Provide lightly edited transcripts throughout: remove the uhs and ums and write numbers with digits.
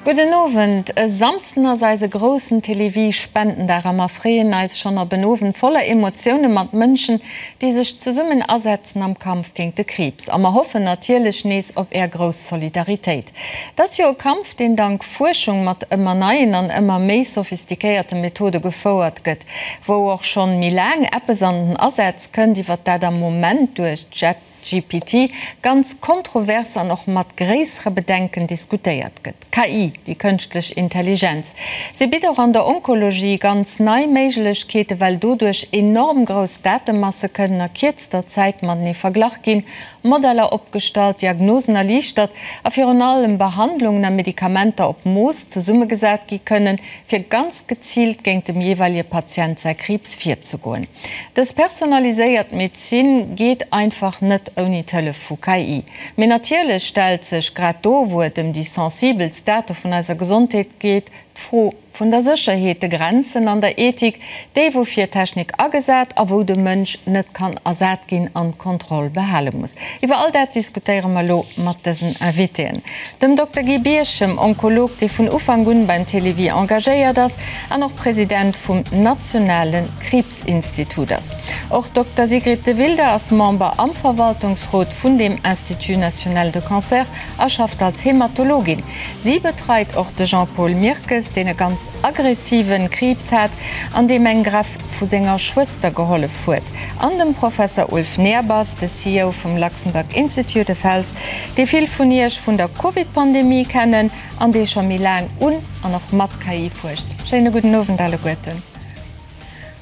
Gudden Owend. E Samsden ass eise groussen Télévie Spendendag a mer freeën eis schonn op en Owend voller Emotioune mat Mënschen, déi sech zesummen asetzen am Kampf géint de Kriibs. A mer hoffen natierlech nees op är grouss Solidaritéit. Et ass jo e Kampf, deen dank Fuerschung mat ëmmer neien an ëmmer méi sophistiquéierte Methode gefouert gëtt, wou och schonn méi laang eppes an den Asaz kënnt, iwwer dat am Moment duerch ChatGPT ganz kontrovers an och mat gréissere Bedenken diskutéiert gëtt. KI, déi kënschtlech Intelligenz, si bitt och an der Onkologie ganz nei Méiglechkeeten, well doduerch enorm grouss Datemasse kënnen a kierzter Zäit matenee verglach ginn, Modeller opgestallt, Diagnosen erliichtert a virun allem Behandlungen a Medikamenter op Mooss zesummegesat gi kënnen, fir ganz geziilt géint dem jeeweilige Patient säi Kriibs virzegoen. Dës personaliséiert Medezin geet einfach net ouni d'Hëllef vu KI. Mee natierlech stellt sech, grad do wou et ëm déi sensibelst Date vun eiser Gesondheet geet, d'Fro vun der Sécherheet, de Grenzen an der Ethik, déi wou fir Technik agesat a wou de Mënsch net kann ersat ginn an d'Kontroll behale muss. Iwwer all dat diskutéiere mer elo mat dësen Invitéen, dem Dokter Guy Birchem, Onkolog, dee vun Ufank un beim Télévie engagéiert ass an och President vum nationale Kriibsinstitut ass. Och Dokter Sigrid de Wilde ass Member am Verwaltungsrot vun deem Institut national de cancer a schafft als Hematologin. Si betreit och de Jean-Paul Mirkes, deen e ganz aggressiven Kriibs hat an deem eng Greff vu senger Schwëster gehollef huet, an dem Professer Ulf Nehrbass, de CEO vum Luxembourg Institute of Health, dee vill vun Iech vun der Covid-Pandemie kennen an dee scho méi laang un an och mat KI fuerscht. Schéine gudden Owend alleguerten.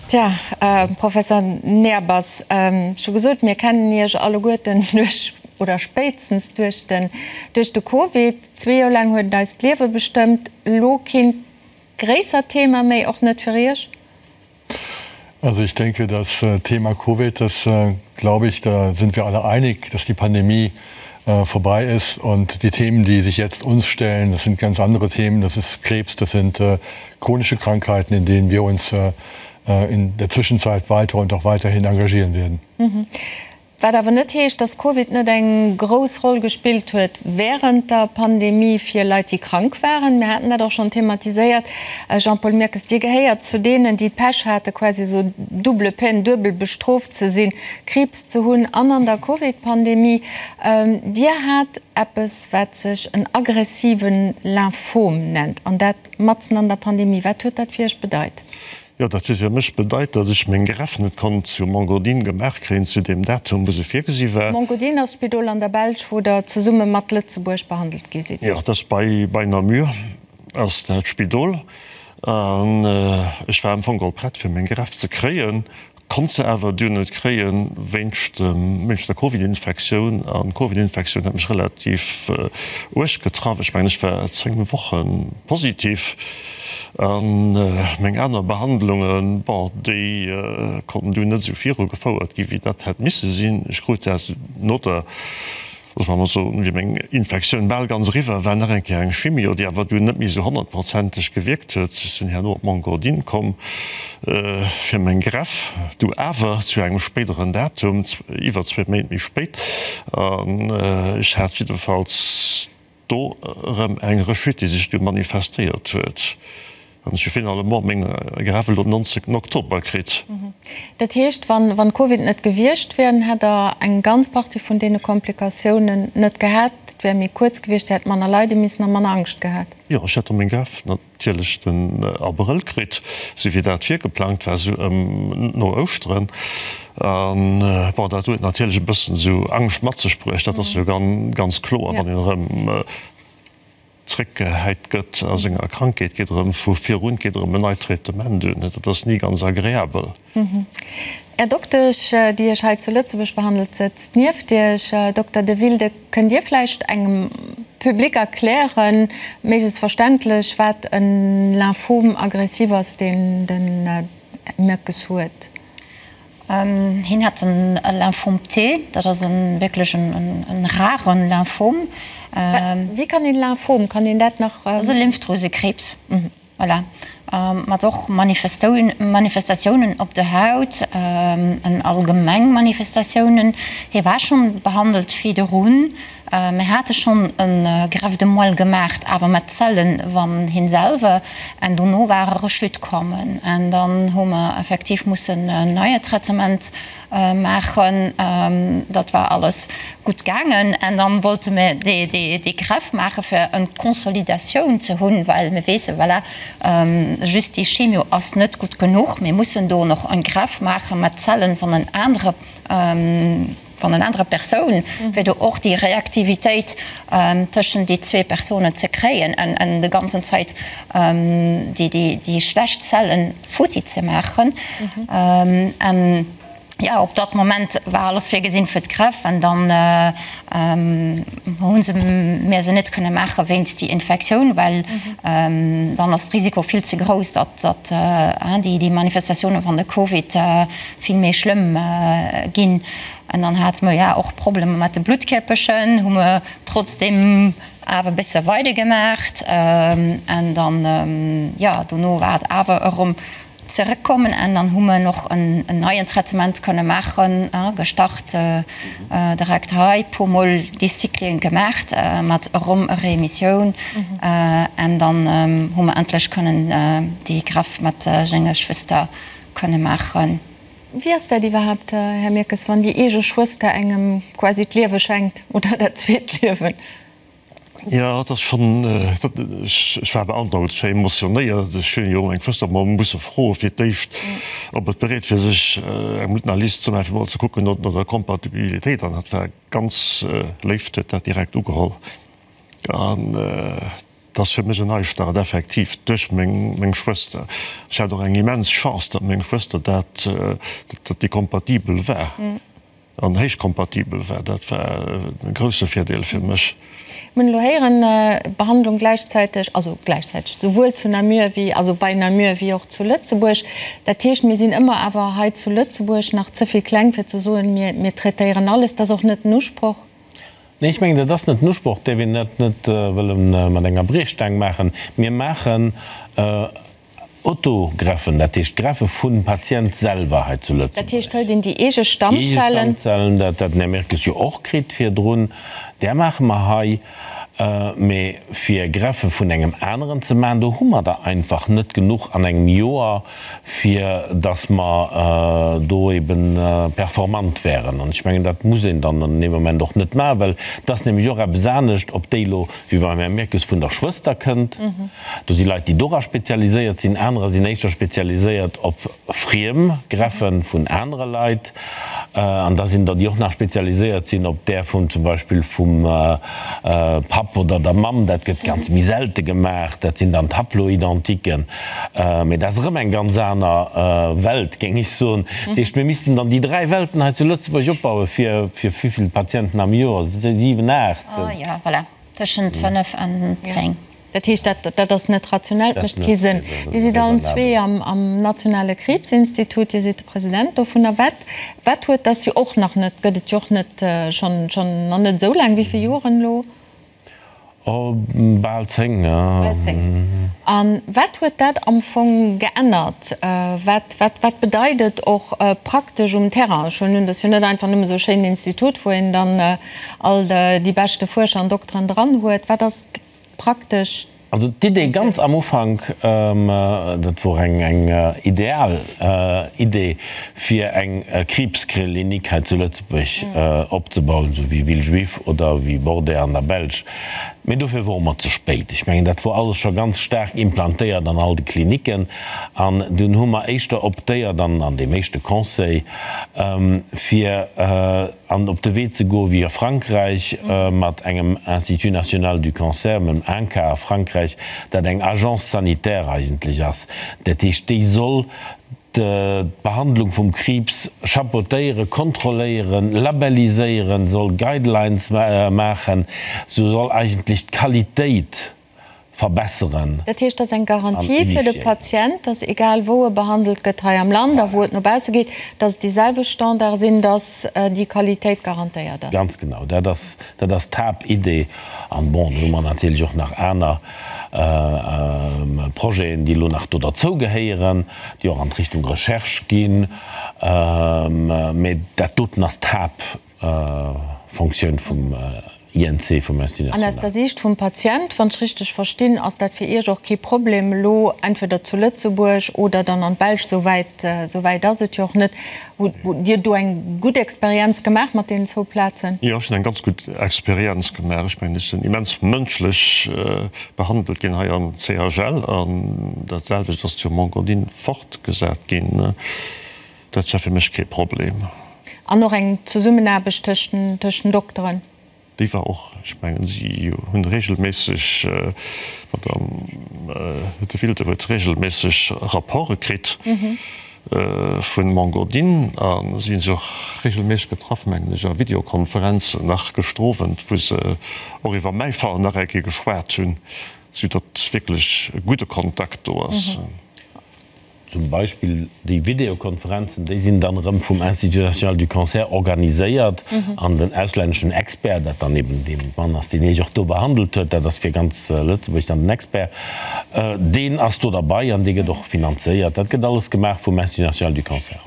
Tja, Professer Nehrbass, ech hu gesot, mir kennen Iech alleguerten duerch, oder spéitstens duerch den, duerch de Covid. Zwee Joer laang huet et eist Liewe bestëmmt. Elo keen gréissert Thema méi, och net fir Iech? Also ich denke, das Thema Covid, das glaube ich, da sind wir alle einig, dass die Pandemie vorbei ist und die Themen, die sich jetzt uns stellen, das sind ganz andere Themen. Das ist Krebs, das sind chronische Krankheiten, in denen wir uns in der Zwischenzeit weiter und auch weiterhin engagieren werden. Wat awer net heescht, dass Covid net eng grouss Roll gespillt huet wärend der Pandemie fir Leit, déi krank waren. Mir haten dat och schonn thematiséiert. Jean-Paul Mirkes, Dir gehéiert zu deenen, déi d'Pech hate quasi esou double peine, duebel bestrooft ze sinn, Kriibs ze hunn an an der Covid-Pandemie. Dir hat eppes, wat sech en aggressive Lymphom nennt, an dat matzen an der Pandemie. Wat huet dat fir Iech bedeit? Jo, dat huet fir mech bedeit, datt ech meng Greffe net konnt zu Mont-Godin gemaach kréien, zu deem Datum, wou se virgesi war. Mont-Godin ass d'Spidol an der Belsch, wou Der zesumme mat Lëtzebuerg behandelt gi sidd. Jo, dat ass bei, bei Namur ass dat Spidol. An ech war am Fong geholl prett, fir meng Greffe ze kréien. Konnt se awer dunn net kréien wéinst wéinst der Covid-Infektioun. An d'Covid-Infektioun hat mech relativ uerg getraff. Ech mengen ech war 10 Woche positiv. An meng aner Behandlungen, bon, déi konnten dunn net esou viru gefouert ginn, wéi dat hätt misse sinn. Ech krut dat no der Loosse mer emol soen, wéi meng Infektioun bal ganz eriwwer war, nach eng Kéier eng Chimio, déi awer dunn net méi esou honnertprozenteg gewierkt huet. Ech sinn herno op Mont-Godin komm fir meng Greff, du awer zu engem spéideren Datum, iwwer zwee Méint méi spéit. An ech hat jiddefalls do erëm eng Rechute, déi sech du manifestéiert huet. An ech hu finalement meng Greffe elo den 19 Oktober kritt. Dat heescht, wann Covid net gewiescht wär, dann hätt Der eng ganz Partie vun deene Komplikatiounen net gehat, et wär méi kuerz gewiescht, Dir hätt manner leide missen a manner Angscht gehat? Jo, ech hätt da meng Greffe natierlech den Abrëll kritt, esou wéi dat virgeplangt war, esou ëm no Ouschteren. An bon, dat huet natierlech e bëssen esou Angscht mat sech bruecht, dat ass jo ganz kloer, wann een erëm zréckgehäit gëtt a senger Krankheet, geet erëm vu virun, geet erëm en neit Traitement un. Dat ass ni ganz agreabel. Är Doktesch, déi Iech hei zu Lëtzebuerg behandelt, sëtzt nieft Iech. Dokter De Wilde, kënnt Dir vläicht engem Public erklären, méiglechst verständlech, wat e Lymphome aggressif ass, deen de Mirkes huet? Hien hat en Lymphom T, dat ass e wierklech en raren Lymphom. Wéi kann een Lymphom, kann een dat nach. Dat ass e Lymphdrüsekrebs, voilà, mat och Manifestatiounen op der Haut, en allgemeng Manifestatiounen. Hie war schonn behandelt virdrun. Mir hate schonn e Greffe de moelle gemaacht, awer mat Zellen van him selwer, en dono war e Rechute kommen en dann hu mer effektiv mussen en neie Traitement maachen. Dat war alles gutt gaangen en dann wollte mir dee Greffe maache fir en Consolidatioun ze hunn, well mir weesse voilà, just déi Chemio ass net gutt genuch, mir mussen do noch en Greffe maache mat Zellen van en anere. Van en anerer Persoun, fir do och déi Reaktivitéit tëschent déi zwee Persounen ze kréien en de ganzen Zäit déi schlecht Zellen futti ze maachen. En jo, op dat Moment war alles virgesinn fir d'Greffe en dann hu se mir se net kënne maache wéinst déi Infektioun, well dann ass d'Risiko vill ze grouss, datt déi Manifestatioune van de Covid vill méi schlëmm ginn. An dann hate mer jo och Problemer mat de Bluttkierperchen, hu mer trotzdeem awer e bësse weidergemaacht. An dann, jo, dono war et awer erëm zeréckkommen an dann hu mer och en neien Traitement kënne maachen, gestart direkt hei, puer mol déi Cyclen gemaacht mat erëm e Remissioun. An dann hu mer endlech kënnen déi Greffe mat senger Schwëster kënne maachen. Wéi ass dat iwwerhaapt, Här Mirkes, wann déi eege Schwëster engem quasi d'Liewe schenkt oder dat zweet Liewen? Jo, dat ass schonn, ech war beandrockt, ech war emotionéiert. Ech hunn jo meng Schwëster mol musse froe fir d'éischt, ob et bereet wier, sech eng Blutanalyse ze maachen, fir mol ze kucken no der Kompatibilitéit. An hatt war ganz léif, huet dat direkt ugeholl. An Et ass fir mech en Neistart, effektiv, duerch meng Schwëster. Ech hat och eng immens Chance, datt meng Schwëster dat, datt déi kompatibel war an héich kompatibel war. Dat war e grousse Virdeel fir mech. Mir hunn elo héieren, Behandlung gläichzäiteg, also gläichzäiteg, souwuel zu Namur wéi, also bei Namur wéi och zu Lëtzebuerg. Dat heescht, mir sinn ëmmer awer hei zu Lëtzebuerg nach ze vill kleng, fir ze soen, mir traitéieren alles. Dat ass och net den Usproch. Nee, ech mengen, dat ass net den Usproch, däerf een dat net wëlle mat enger Briechstaang maachen. Mir maachen Autogreffen, dat heescht Greffe vum Patient selwer hei zu Lëtzebuerg. Dat heescht, hëlt een déi eege Stammzellen? Déi eege Stammzellen, dat dat den Här Mirkes jo och kritt virdrun, där maache mer hei. Mee fir Greffe vun engem aneren ze maachen, do hu mer der einfach net genuch an engem Joer, fir dass mer do eben performant wären. An ech mengen, dat muss een dann an deem Moment och net maachen, well et ass nämlech och eppes anescht, ob déi elo, wéi beim Här Mirkes, vun der Schwëster kënnt. Do si Leit, déi dora spezialiséiert sinn, anerer sinn éischter spezialiséiert op friem Greffe vun anere Leit. An da sinn der, déi och nach spezialiséiert sinn op där vun zum Beispill vum Papp oder der Mamm. Dat gëtt ganz méi selte gemaach. Dat sinn dann d'Haploidentiquen. Mee dat ass erëm eng ganz aner Welt, géing ech soen. Dat heescht, mir missten dann déi dräi Welten hei zu Lëtzebuerg opbauen, fir wéi vill Patienten am Joer? Siwen, aacht? Jo, voilà, tëschent fënnef an zéng. Dat heescht, dat, dat ass net rationell, dat mécht kee Sënn. Dir sidd allen zwee am, am nationale Kriibsinstitut, Dir sidd de President dovunner. Wat, wat huet, dat ass jo och nach net, gëtt et jo och net schonn, schonn nach net esou laang, wéi vill Joren elo? Oh, bal 10, ja. Bal 10. A wat huet dat am Fong geännert? Wat, wat, wat bedeit et och praktesch um Terrain? Ech huelen un, dat ass jo net einfach nëmme esou e schéinen Institut, wou een dann all déi beschte Fuerscher an Dokteren dran huet. Wat ass praktesch Also d'Idee ganz am Ufank, dat wor eng eng ideal Idee, fir eng Kriibsklinik hei zu Lëtzebuerg opzebauen, esou wéi Villejuif oder wéi Bordet an der Belsch. Mee dofir wore mer ze spéit. Ech mengen, dat wor alles scho ganz staark implantéiert an all de Kliniken. An dunn hu mer éischter optéiert, an an deem éischte Conseil, fir, an op de Wee ze goe wéi a Frankräich mat engem Institut national du cancer, mam INCa a Frankräich, dat eng Agence sanitaire eigentlech ass. Dat heescht, déi soll d'Behandlung vum Kriibs chapeautéieren, kontrolléieren, labelliséieren, soll Guidelines maachen, sou soll eigentlech d'Qualitéit verbesseren. Dat heescht, dat ass eng Garantie fir de Patient, dass egal wou e behandelt gëtt hei am Land a wou et no bausse geet, dass et déi selwecht Standarde sinn, dass déi Qualitéit garantéiert ass. Ganz genau, dat ass, dat ass d'Haaptidee. An bon, do hu mer natierlech och nach aner Projeten, déi elo nach do derzou gehéieren, déi och an d'Richtung Recherche ginn. Mä dat doten ass d'Haaptfonctioun vum. INC, vum Institut An aus National. der Siicht vum Patient, wann ech richteg verstinn, ass dat fir Iech och kee Problem elo, entweder zu Lëtzebuerg oder dann an d'Belsch, esou wäit, esou wäit ass et jo och net. Hutt Dir do eng gutt Experienz gemaach mat deenen zwou Plazen? Jo, ech hunn eng ganz gutt Experienz gemaach. Ech mengen, ech sinn immens mënschlech behandelt ginn hei am CHL an dat selwecht ass zu Mont-Godin fortgesat ginn. Dat war fir mech kee Problem. An och eng Zesummenaarbecht tëscht den Dokteren? Déi war och, ech mengen, si hunn regelméisseg, d'Madame De Wilde huet regelméisseg Rapporte kritt vu Mont-Godin a si hunn sech och regelméisseg getraff, mengen ech, a Videokonferenzen nach gëschter Owend, wou se och iwwer mäi Fall nach eng Kéier geschwat hunn, soudatt wierklech e gudde Kontakt do ass. Zum Beispill déi Videokonferenzen, déi sinn dann erëm vum Institut national du cancer organiséiert an den auslänneschen Expert, dat dann eben dee Mann ass, deen Iech och do behandelt huet, dat ass fir ganz Lëtzebuerg dann den Expert, deen ass do derbei an dee gëtt och finanzéiert. Dat gëtt alles gemaach vum Institut national du cancer.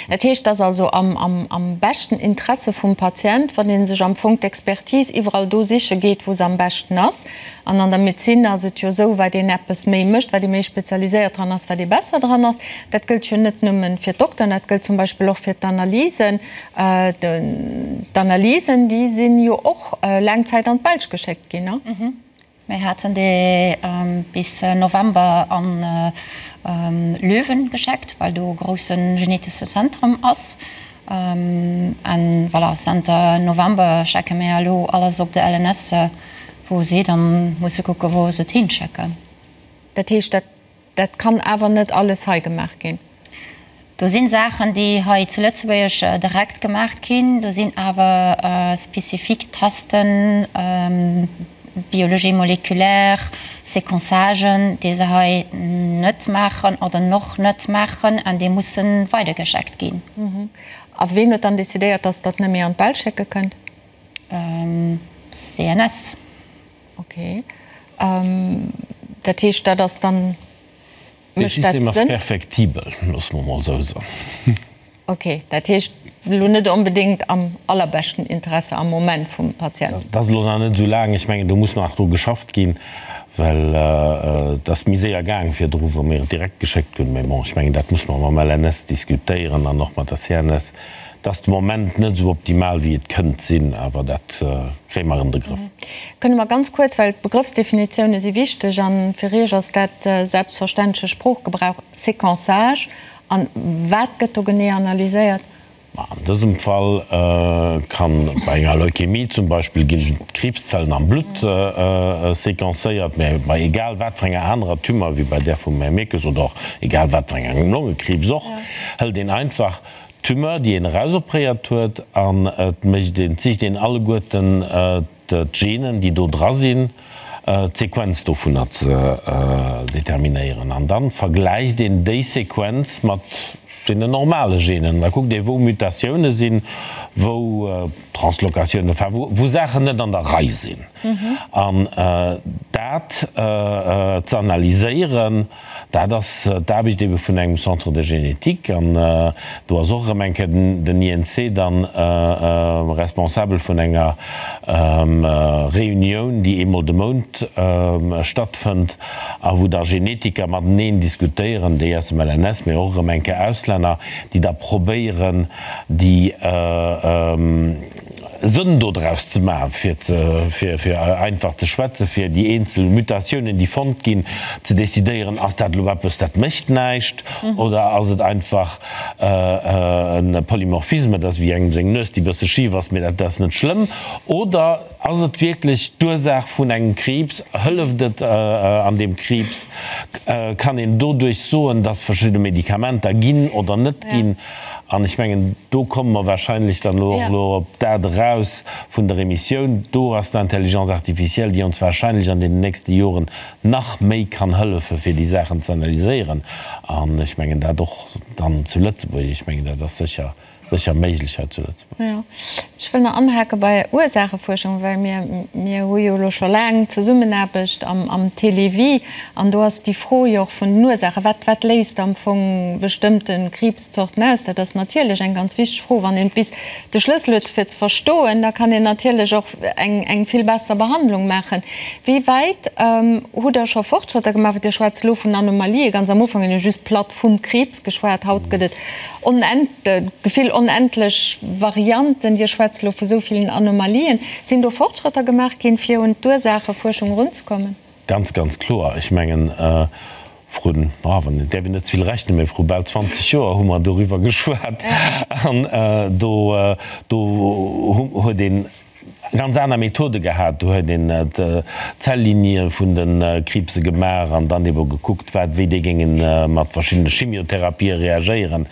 Dat heescht, et ass also am beschten Interesse vum Patient, wann ee sech am Fong d'Expertise iwwerall do siche geet, wou se am beschten ass. An an der Medezin ass et jo esou, wat een eppes méi mécht, wat ee méi spezialiséiert dran ass, wat ee besser dran ass. Dat gëllt jo net nëmme fir d'Dokteren, dat gëllt zum Beispill och fir d'Analysen. D'Analysen, déi si jo och laang Zäit an d'Belsch geschéckt ginn, ne? Mir haten déi bis November an Löwen gescheckt, well do e grousse genetesche Zentrum ass. An voilà, zenter November schecke mir elo alles op de LNS, wou si dann musse kucke wou se et hinschecken. Dat heescht, dat dat kann awer net alles hei gemaach ginn? Do sinn Saachen, déi hei zu Lëtzebuerg direkt gemaach ginn. Do sinn awer spezifik Testen, Biologie moléculaire, Séquençagen, déi se hei net maachen oder noch net maachen an déi musse weidergescheckt ginn. A ween huet dann decidéiert, dass Der et net méi an d'Belsch schécke kënnt? CNS. Ok. Dat heescht, dat ass dann, Dee mécht dat System ass Sënn? perfektibel, loosse mer emol esou soen. Ok, dat heescht elo net onbedéngt am allerbeschten Interesse am Moment vum Patient. Dat ass elo nach net esou laang. Ech mengen, do muss nach dru geschafft ginn, well et ass méi séier gaang virdru, wou mir et direkt geschéckt hunn. Mä bon, ech mengen, dat muss mer mam LNS diskutéieren an och mat der CNS. Et ass de Moment net esou optimal, wéi et kënnt sinn, awer dat kréie mer an de Grëff. Kënne mer ganz kuerz, well d'Begrëffsdefinitioune si wichteg a fir Iech ass dat selbstverständleche Sproochgebrauch, Séquençage, An wat gëtt do genee analyséiert? Ma an dësem Fall kann bei enger Leukämie zum Beispill ginn d'Kriibszellen am Blutt sequencéiert, mä bei egal wat fir enger anerer Tumeur, wéi bei där vum Här Mirkes oder och egal wat fir engem Longekriibs och, hëlt een einfach d'Tumeur, déi een erausopréiert huet, an et mécht een, et sicht een alleguerten d'Genen, déi do dra sinn, d'Sequenz dovunner ze determinéieren. An da vergläicht een déi Sequenz mat deenen normale Genen. Da kuckt ee wou Mutatioune sinn, wou Translokatiounen, enfin wou Saachen net an der Rei sinn. An dat ze analyséieren, Dat ass d'Aarbecht ebe vun engem Centre de génétique an do ass och erëm eng Kéier den INC dann responsabel vun enger Reunioun, déi eemol de Mount stattfënnt a wou da Genetiker mateneen diskutéieren, déi aus dem LNS, mee och erëm eng Kéier Auslänner, déi da probéieren, déi Sënn dodraus ze maachen, fir ze, fir, fir einfach ze schwätzen, fir déi eenzel Mutatiounen, déi fonnt ginn, ze decidéieren, ass dat elo eppes, dat mécht näischt, oder ass et einfach e Polymorphisme, dat ass wéi engem seng Nues, déi e bësse schif ass, mee dat ass net schlëmm, oder ass et wierklech d'Ursaach vun engem Kriibs, hëlleft et an deem Kriibs, kann een doduerch soen, dass verschidde Medikamenter ginn oder net ginn. An ech mengen, do komme mer wahrscheinlech dann elo och elo op dat eraus vun der Emissioun. Do ass d'Intelligence artificielle, déi ons wahrscheinlech an deenen nächste Joren nach méi kann hëllefen, fir déi Saachen ze analyséieren. An ech mengen dat och dann zu Lëtzebuerg. Ech mengen, dat ass sécher, sécher méiglech hei zu Lëtzebuerg. Jo. Ech wëll nach anhake bei Ursaachefuerschung, well mir, mir hu jo elo scho laang Zesummenaarbecht am, am Télévie an do ass déi Fro jo och vun den Ursaachen, wat, wat léist am Fong bestëmmte Kriibszorten aus? Dat ass natierlech eng ganz wichteg Fro. Wann een bis de Schlëssel huet fir ze verstoen, da kann een natierlech och eng, eng vill besser Behandlung maachen. Wéi wäit hutt Der scho Fortschrëtter gemaach? Well Dir schwätzt elo vun Anomalien. Ganz am Ufank hunn ech just platt vum Kriibs geschwat. Haut gëtt et Gefill onendlech Varianten. Dir schwätzt elo vu sou villen Anomalien. Sinn do Fortschrëtter gemaach ginn, fir un d'Ursaachefuerschung erunzekommen? Ganz, ganz kloer. Ech mengen, vrun, wann een, däerf een net ze vill rechnen, mä vru bal 20 Joer hu mer doriwwer geschwat. An do, do huet een ganz aner Methode gehat. Do huet een d'Zelllinie vun de Kriibse gemaach an dann ebe gekuckt, wat, wéi déi géinge mat verschiddene Chimiotherapië reagéieren.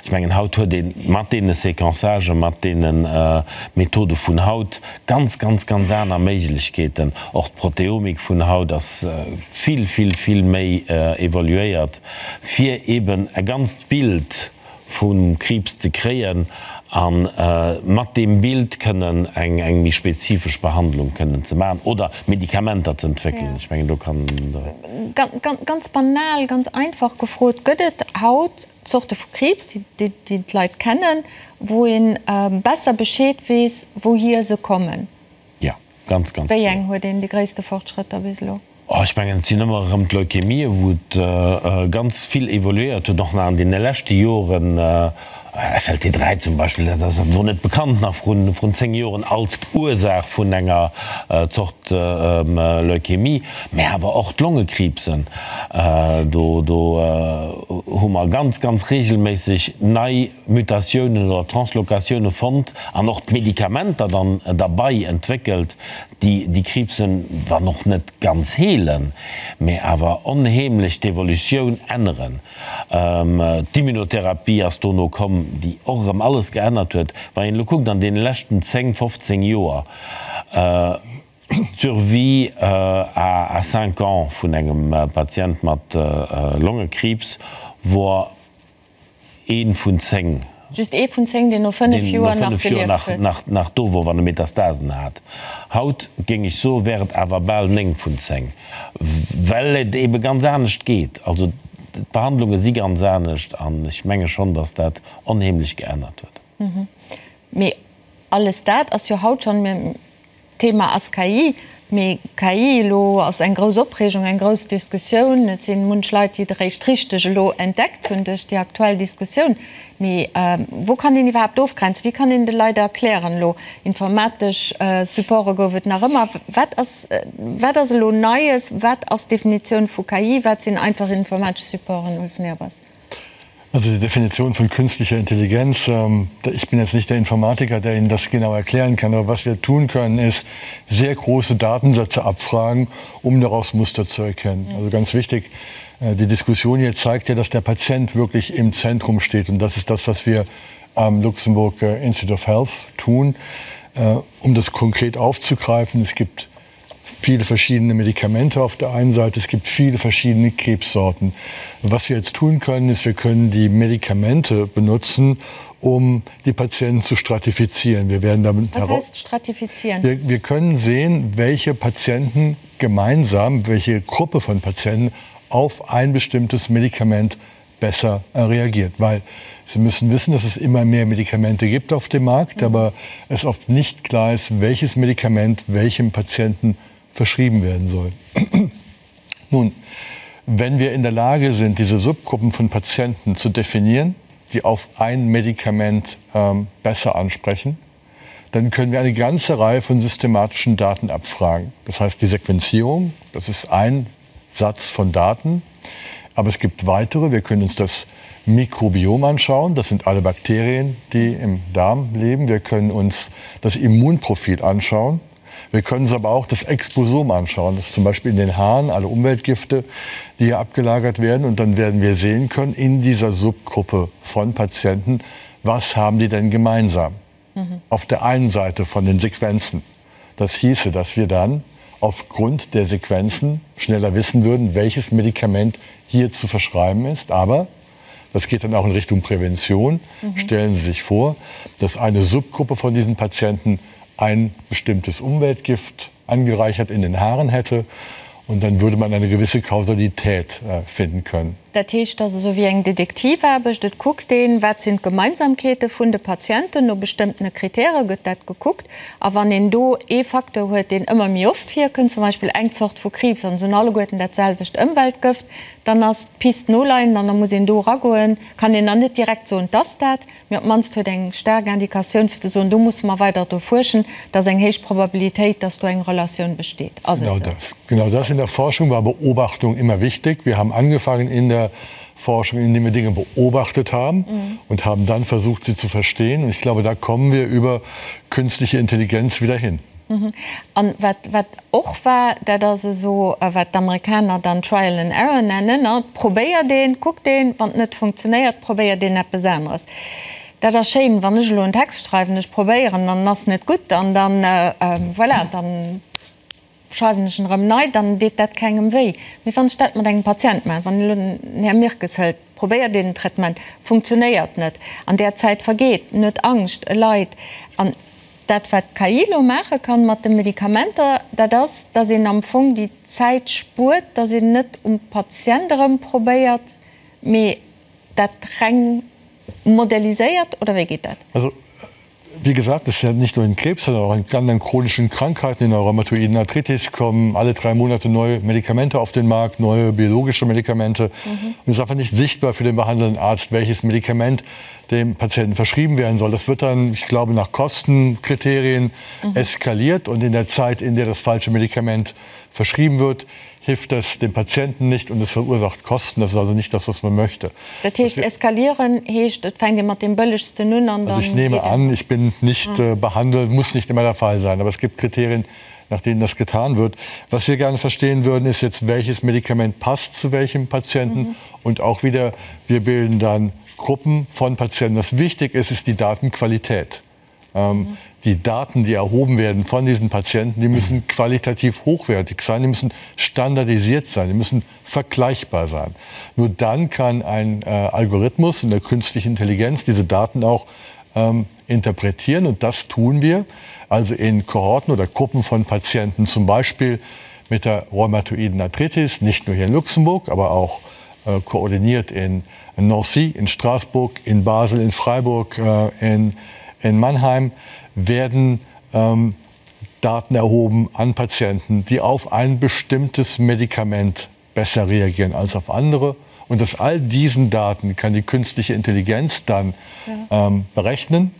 Ech mengen, haut huet ee mat deene Séquençagen, mat deene Methode vun haut ganz, ganz, ganz aner Méiglechkeeten. Och d'Proteomik vun haut ass vill, vill, vill méi evoluéiert, fir eben e ganzt Bild vum Kriibs ze kréien a mat deem Bild kënnen eng eng méi spezifesch Behandlung kënnen ze maachen oder Medikamenter ze entwéckelen. Ech mengen, do kann de. Ganz banal, ganz einfach gefrot, Gëtt et haut Zorte vu Kriibs, déi d'Leit kennen, wou ee besser Bescheed weess, wouhier se kommen? Jo. Ganz, ganz Wéi eng huet een déi gréisste Fortschrëtter bis elo? Oh, ech mengen, et sinn ëmmer erëm d'Leukämie, wou et ganz vill evoluéiert huet, och nach an deene leschte Joren. FLT3 zum Beispill, dat ass wor net bekannt nach vrun, vrun 10 Joren als Ursaach vun enger Zort Leukämie. Mä awer och d'Longekriibsen, do, do hu mer ganz, ganz regelméisseg nei Mutatiounen oder Translokatioune fonnt an och d'Medikamenter dann derbei entwéckelt, déi déi Kriibsen, wann och net ganz heelen, mä awer onheemlech d'Evolutioun änneren. D'Immunotherapie ass dono komm, déi och erëm alles geännert huet. Wann een elo kuckt an deene leschten 10, 15 Joer, d'Survie à cinq ans vun engem Patient mat Longekriibs wor Ee vun 10. Just ee vun 10, deen no 5 Joer nach gelieft huet. Nach do wor, wann e Metastasen hat. Haut, géing ech soen, wär et awer bal 9 vun 10, well et ebe ganz anescht geet. Also d'Behandlunge si ganz anescht an ech menge schonn, datt dat onheemlech geännert huet. Mee alles dat ass jo haut schonn. D'Thema ass KI, mee KI elo ass eng grouss Opreegung, eng grouss Diskussioun. Et si munch Leit, déi et eréischt richteg elo entdeckt hunn duerch déi aktuell Diskussioun. Mee wou kann een iwwerhaapt ofgrenzen? Wéi kann een de Leit erklären elo, informatesch Supporte gouf et nach ëmmer. Wat ass, wat ass elo Neies? Wat ass d'Definitioun vu KI? Wat sinn einfach informatesch Supporten, Ulf Nehrbass? Also die Definition von künstlicher Intelligenz, ähm, ich bin jetzt nicht der Informatiker, der Ihnen das genau erklären kann, aber was wir tun können, ist sehr große Datensätze abfragen, um daraus Muster zu erkennen. Mhm. Also ganz wichtig, äh, die Diskussion hier zeigt ja, dass der Patient wirklich im Zentrum steht und das ist das, was wir am Luxemburg äh, Institute of Health tun. Äh, um das konkret aufzugreifen, es gibt viele verschiedene Medikamente auf der einen Seite, es gibt viele verschiedene Krebssorten. Was wir jetzt tun können, ist, wir können die Medikamente benutzen, um die Patienten zu stratifizieren. Wir werden damit Was heißt stratifizieren? Wir, wir können sehen, welche Patienten gemeinsam, welche Gruppe von Patienten auf ein bestimmtes Medikament besser reagiert. Weil Sie müssen wissen, dass es immer mehr Medikamente gibt auf dem Markt, mhm. aber es oft nicht klar ist, welches Medikament welchem Patienten verschrieben werden soll. Nun, wenn wir in der Lage sind, diese Subgruppen von Patienten zu definieren, die auf ein Medikament ähm, besser ansprechen, dann können wir eine ganze Reihe von systematischen Daten abfragen. Das heißt die Sequenzierung, das ist ein Satz von Daten. Aber es gibt weitere. Wir können uns das Mikrobiom anschauen. Das sind alle Bakterien, die im Darm leben. Wir können uns das Immunprofil anschauen. Wir können uns aber auch das Exposom anschauen. Das ist zum Beispiel in den Haaren alle Umweltgifte, die hier abgelagert werden. Und dann werden wir sehen können in dieser Subgruppe von Patienten, was haben die denn gemeinsam? Mhm. Auf der einen Seite von den Sequenzen. Das hieße, dass wir dann aufgrund der Sequenzen schneller wissen würden, welches Medikament hier zu verschreiben ist. Aber. Das geht dann auch in Richtung Prävention. Mhm. Stellen Sie sich vor, dass eine Subgruppe von diesen Patienten ein bestimmtes Umweltgift angereichert in den Haaren hätte und dann würde man eine gewisse Kausalität äh, finden können. Dat heescht, dat ass esou wéi eng Detektivaarbecht, Et kuckt een, wat sinn d'Gemeinsamkeete vun de Patienten, no bestëmmtene Kritäre gëtt dat gekuckt. A wann een do ee Facteur huet, deen ëmmer méi oft virkënnt, zum Beispill eng Zort vu Kriibs, an se hunn alleguerten dat selwecht Ëmweltgëft, dann ass d'Pist noleiend an da muss een do eragoen. Kann een dann net direkt soen, 't ass dat, mee op d'mannst huet eng staark Indikatioun fir ze soen, do musse mer weider dru fuerschen, et ass eng héich Probabilitéit, dass do eng Relatioun besteet. Ass et Genau esou? das. Genau das. In der Forschung war Beobachtung immer wichtig. Wir haben angefangen in der Forschung, indem wir Dinge beobachtet haben mhm. und haben dann versucht, sie zu verstehen. Und ich glaube, da kommen wir über künstliche Intelligenz wieder hin. Mhm. An wat, wat och war, dat ass esou, wat d'Amerikaner dann Trial and Error nennen, ne? Probéiert een, kuckt een, wann et net funktionéiert, probéiert een eppes aneres. Dat ass schéin, wann ech elo en Text schreiwen, ech probéieren an en ass net gutt an dann, voilà, dann schreiwen ech en erëm nei, dann deet dat kengem wéi. Mee wann ech dat mat engem Patient maachen, wann elo den Här Mirkes hëlt, probéiert een en Traitement, funktionéiert net, an där Zäit vergeet, en huet Angscht, e leit an dat wat d'KI elo maache kann mat de Medikamenter, dat ass, datt een am Fong déi Zäit spuert, datt een net um Patient erëm probéiert, mee dat reng modelliséiert, oder wéi geet dat? Also, wie gesagt, es ist ja nicht nur in Krebs, sondern auch in anderen chronischen Krankheiten, in der rheumatoiden Arthritis kommen alle drei Monate neue Medikamente auf den Markt, neue biologische Medikamente. Mhm. Und es ist einfach nicht sichtbar für den behandelnden Arzt, welches Medikament dem Patienten verschrieben werden soll. Das wird dann, ich glaube, nach Kostenkriterien mhm. eskaliert und in der Zeit, in der das falsche Medikament verschrieben wird, hilft das dem Patienten nicht und es verursacht Kosten. Das ist also nicht das, was man möchte. Dat heescht, eskalieren heescht, et fänkt ee mat deem bëllegsten un an dann. Also ich nehme an, ich bin nicht behandelt, muss nicht immer der Fall sein, aber es gibt Kriterien, nach denen das getan wird. Was wir gerne verstehen würden, ist jetzt, welches Medikament passt zu welchem Patienten und auch wieder, wir bilden dann Gruppen von Patienten. Was wichtig ist, ist die Datenqualität. Ähm, die Daten, die erhoben werden von diesen Patienten, die müssen qualitativ hochwertig sein, die müssen standardisiert sein, die müssen vergleichbar sein. Nur dann kann ein äh, Algorithmus in der künstlichen Intelligenz diese Daten auch ähm, interpretieren und das tun wir also in Kohorten oder Gruppen von Patienten, zum Beispiel mit der rheumatoiden Arthritis, nicht nur hier in Luxemburg, aber auch äh, koordiniert in Nancy, in Straßburg, in Basel, in Freiburg, äh, in, in Mannheim werden ähm, Daten erhoben an Patienten, die auf ein bestimmtes Medikament besser reagieren als auf andere. Und aus all diesen Daten kann die künstliche Intelligenz dann ja. ähm, berechnen,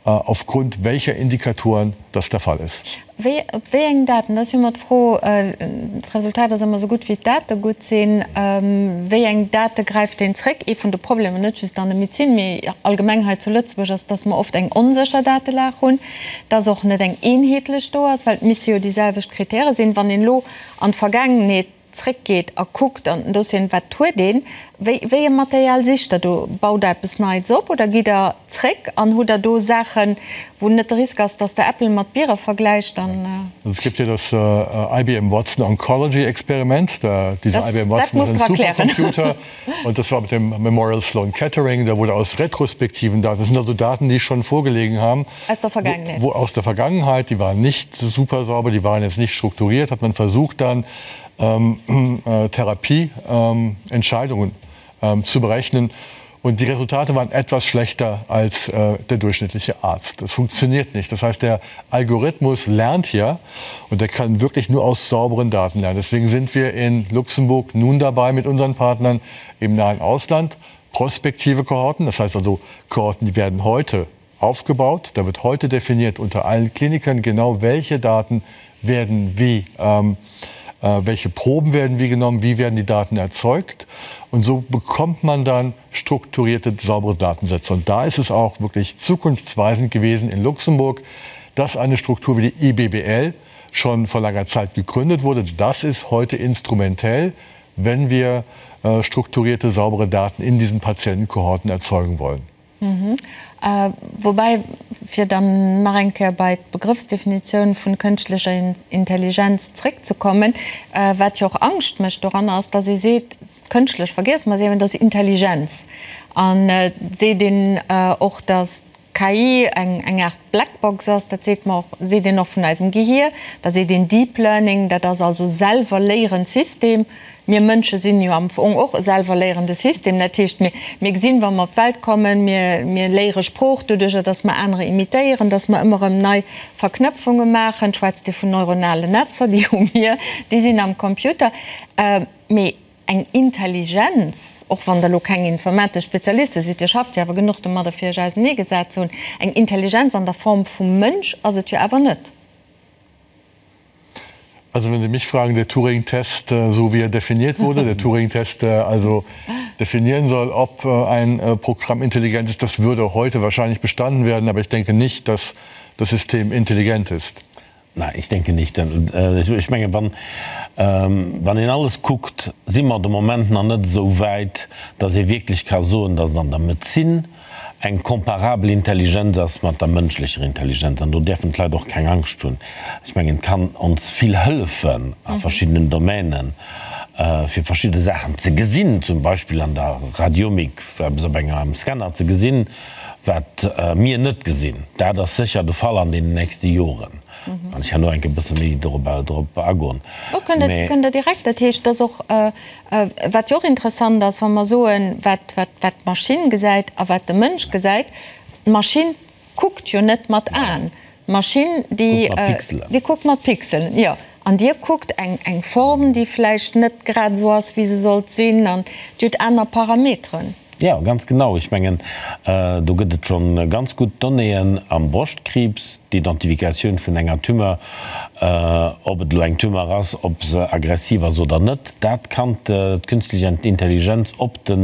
äh, aufgrund welcher Indikatoren das der Fall ist. Wéi, op wéi eng Daten, dat ass jo ëmmer d'Fro, d'Resultat ass ëmmer esou gutt wéi d'Date gutt sinn, wéi eng Date gräift een zréck? Ee vun de Problemer, net just an der Medezin, mee allgemeng hei zu Lëtzebuerg, ass, dass mer oft eng onsécher Datelag hunn, dass och net eng eenheetlech do ass, well et misse jo déi selwecht Kritäre sinn. Wann een elo an d'Vergaangenheet zréckgeet a kuckt an den Dossieren, wat huet een, wéi, wéi e Material sicht Der do? Baut Der eppes Neits op oder gitt Der zréck an hutt Der do Saachen, wou net de Risk ass, dass Der Äppel mat Biere vergläicht? Dann. Also es gibt ja das IBM Watson Oncology Experiment, da dieser Das, IBM dat Watson ist musst ein Der erklären. Supercomputer und das war mit dem Memorial Sloan Kettering, da wurde aus retrospektiven Daten, das sind also Daten, die schon vorgelegen haben, Aus der Vergangenheit. Wo, wo aus der Vergangenheit, die waren nicht super sauber, die waren jetzt nicht strukturiert, hat man versucht dann ähm, äh, Therapieentscheidungen ähm, ähm, zu berechnen. Und die Resultate waren etwas schlechter als äh, der durchschnittliche Arzt. Das funktioniert nicht. Das heißt, der Algorithmus lernt ja und der kann wirklich nur aus sauberen Daten lernen. Deswegen sind wir in Luxemburg nun dabei mit unseren Partnern im nahen Ausland prospektive Kohorten, das heißt also Kohorten, die werden heute aufgebaut. Da wird heute definiert unter allen Klinikern genau, welche Daten werden wie, ähm, äh, welche Proben werden wie genommen, wie werden die Daten erzeugt. Und so bekommt man dann strukturierte, saubere Datensätze. Und da ist es auch wirklich zukunftsweisend gewesen in Luxemburg, dass eine Struktur wie die IBBL schon vor langer Zeit gegründet wurde. Das ist heute instrumentell, wenn wir äh, strukturierte, saubere Daten in diesen Patientenkohorten erzeugen wollen. Woubäi, fir dann nach eng Kéier bei d'Begrëffsdefinitioun vun kënschtlecher Intelligenz zréckzekommen, wat jo och Angscht mécht doranner, ass, dass ee seet, Kënschtlech vergiesse mer se eben, dat ass Intelligenz. An et seet een och, datt d'KI eng eng Aart Blackbox ass, dat seet mer och, seet een och vun eisem Gehier. Da seet een Deep Learning, dat ass also selwer léierend System. Mir Mënsche sinn jo am Fong och e selwer léierende System. Dat heescht, mir mir gesinn, wa mer op d'Welt kommen, mir mir léiere Sprooch doduercher, datt mer anerer imitéieren, datt mer ëmmer erëm nei Verknëpfunge maachen. Schwätzt Dir vun neuronalen Netzer, déi hu mir, déi sinn am Computer. Mee eng Intelligenz, och wann Der elo keng informatesch Spezialiste sidd, Dir schafft jo awer genuch domadder, fir Iech auseneegesat ze hunn, eng Intelligenz an der Form vum Mënsch ass et jo awer net. Also wenn Sie mich fragen, der Turing-Test, so wie er definiert wurde, der Turing-Test, der also definieren soll, ob ein Programm intelligent ist, das würde heute wahrscheinlich bestanden werden, aber ich denke nicht, dass das System intelligent ist. Nein, ich denke nicht. Ech menge wann, wann een alles kuckt, si mer de Moment nach net esou wäit, datt ee wierklech ka soen, datt et an der Medezin eng comparabel Intelligenz ass mat der mënschlecher Intelligenz. An do däerfen d'Leit och keng Angscht hunn. Ech mengen, et kann ons vill hëllefen a verschiddenen Domänen, fir verschidde Saachen ze gesinn, zum Beispill an der Radiomik eppes op engem Scanner ze gesinn, Wat mir net gesinn, dat ass sécher de Fall an deenen nächste Joren. Kann ech herno eng Kéier e bësse méi dorop agoen. Jo, kënnt Der direkt. Dat heescht, dass och, wat jo och interessant ass, wa mer soen, wat d'Maschinn gesäit a wat de Mënsch gesäit, d'Maschinn kuckt jo net mat Aen. D'Maschinn, déi kuckt mat Pixelen, jo. An Dir kuckt eng Form, déi vläicht net grad esou ass, wéi se sollt sinn, an Dir hutt aner Parameteren. Jo, ganz genau. Ech mengen, do gëtt et scho ganz gutt Donnéeën am Broschtkriibs, d'Identifikatioun vun enger Tumeur, ob et elo eng Tumeur ass, ob se aggressiv ass oder net, dat kann d'künstlech Intelligenz op de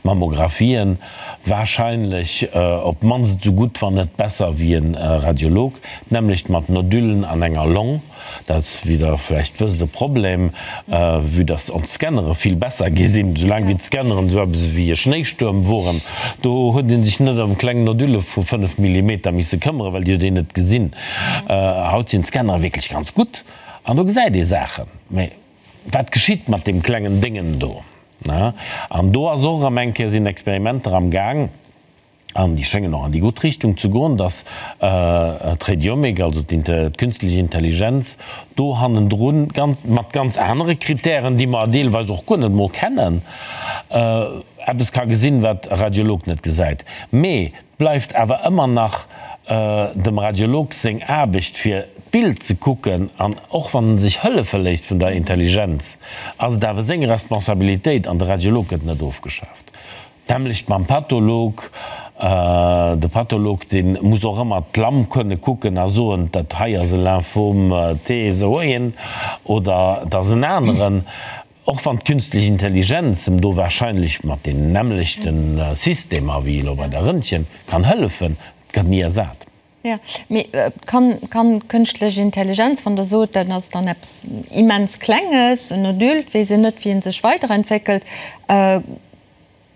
Mammographien warscheinlech op d'mannst esou gutt, wann net besser wéi e Radiolog. D'nämmlecht mat Nodulen an enger Long. Dat ass, wéi Der vläicht wësst, e Problem, vue dass ons Scannere vill besser gi sinn. Soulaang wéi d'Scanneren esou eppes ewéi e Schnéistuerm woren, do huet ee sech net ëm kleng Nodule vu 5 Millimeter misse këmmeren, well déi huet een net gesinn. Haut sinn d'Scannere wierklech ganz gutt an do gesäit ee Saachen. Mä wat geschitt mat deem klengen Déngen do? An do ass och erëm eng Kéier, sinn Experimenter am Gaang, an déi schéngen och an déi gutt Richtung ze goen, datt d'Radiomik, also d'künstlech Intelligenz, do hannendrun ganz, mat ganz anere Kritären, déi mer deelweis och guer net emol kennen, eppes ka gesinn, wat e Radiolog net gesäit. Mee et bleift awer ëmmer nach dem Radiolog seng Aarbecht, fir d'Bild ze kucken, an och wann en sech hëllefe léisst vun der Intelligenz, ass et awer seng Responsabilitéit, an de Radiolog gëtt net ofgeschaaft. D'nämmlecht mam Patholog. De Patholog, dee muss och ëmmer d'Lamm kënne kucken a soen, dat hei ass e Lymphom T esou een oder et ass en aneren. Och wann d'künstlech Intelligenz em do warscheinlech mat deenen nämmlechte Systemer wéi elo bei der Röntgen kann hëllefen, et gëtt ni ersat. Jo, mee kann, kann d'kënschtlech Intelligenz, wann Der sot, dat ass dann eppes immens Klenges, en Adulte, weess een net, wéi en sech weiderentwéckelt,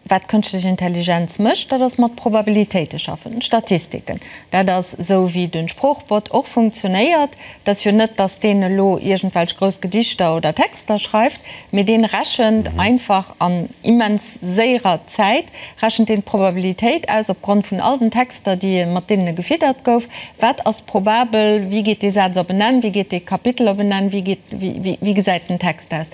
wat d'kënschtlech Intelligenz mécht, dat ass mat Probabilitéite schaffen, Statistiken. Dat ass esou, wéi de Sproochbot och funktionéiert. Et ass jo net, datt deen elo iergendwelch grouss Gedichter oder Texter schreift, mee dee rechent einfach an immens séierer Zäit rechent deen d'Probabilitéit aus opgrond vun all den Texter, déi mat deenen e gefiddert gouf. Wat ass probabel? Wéi geet dee Saz op en Enn? Wéi geet dee Kapitel op en Enn? Wéi geet, wéi, wéi gesäit den Text aus?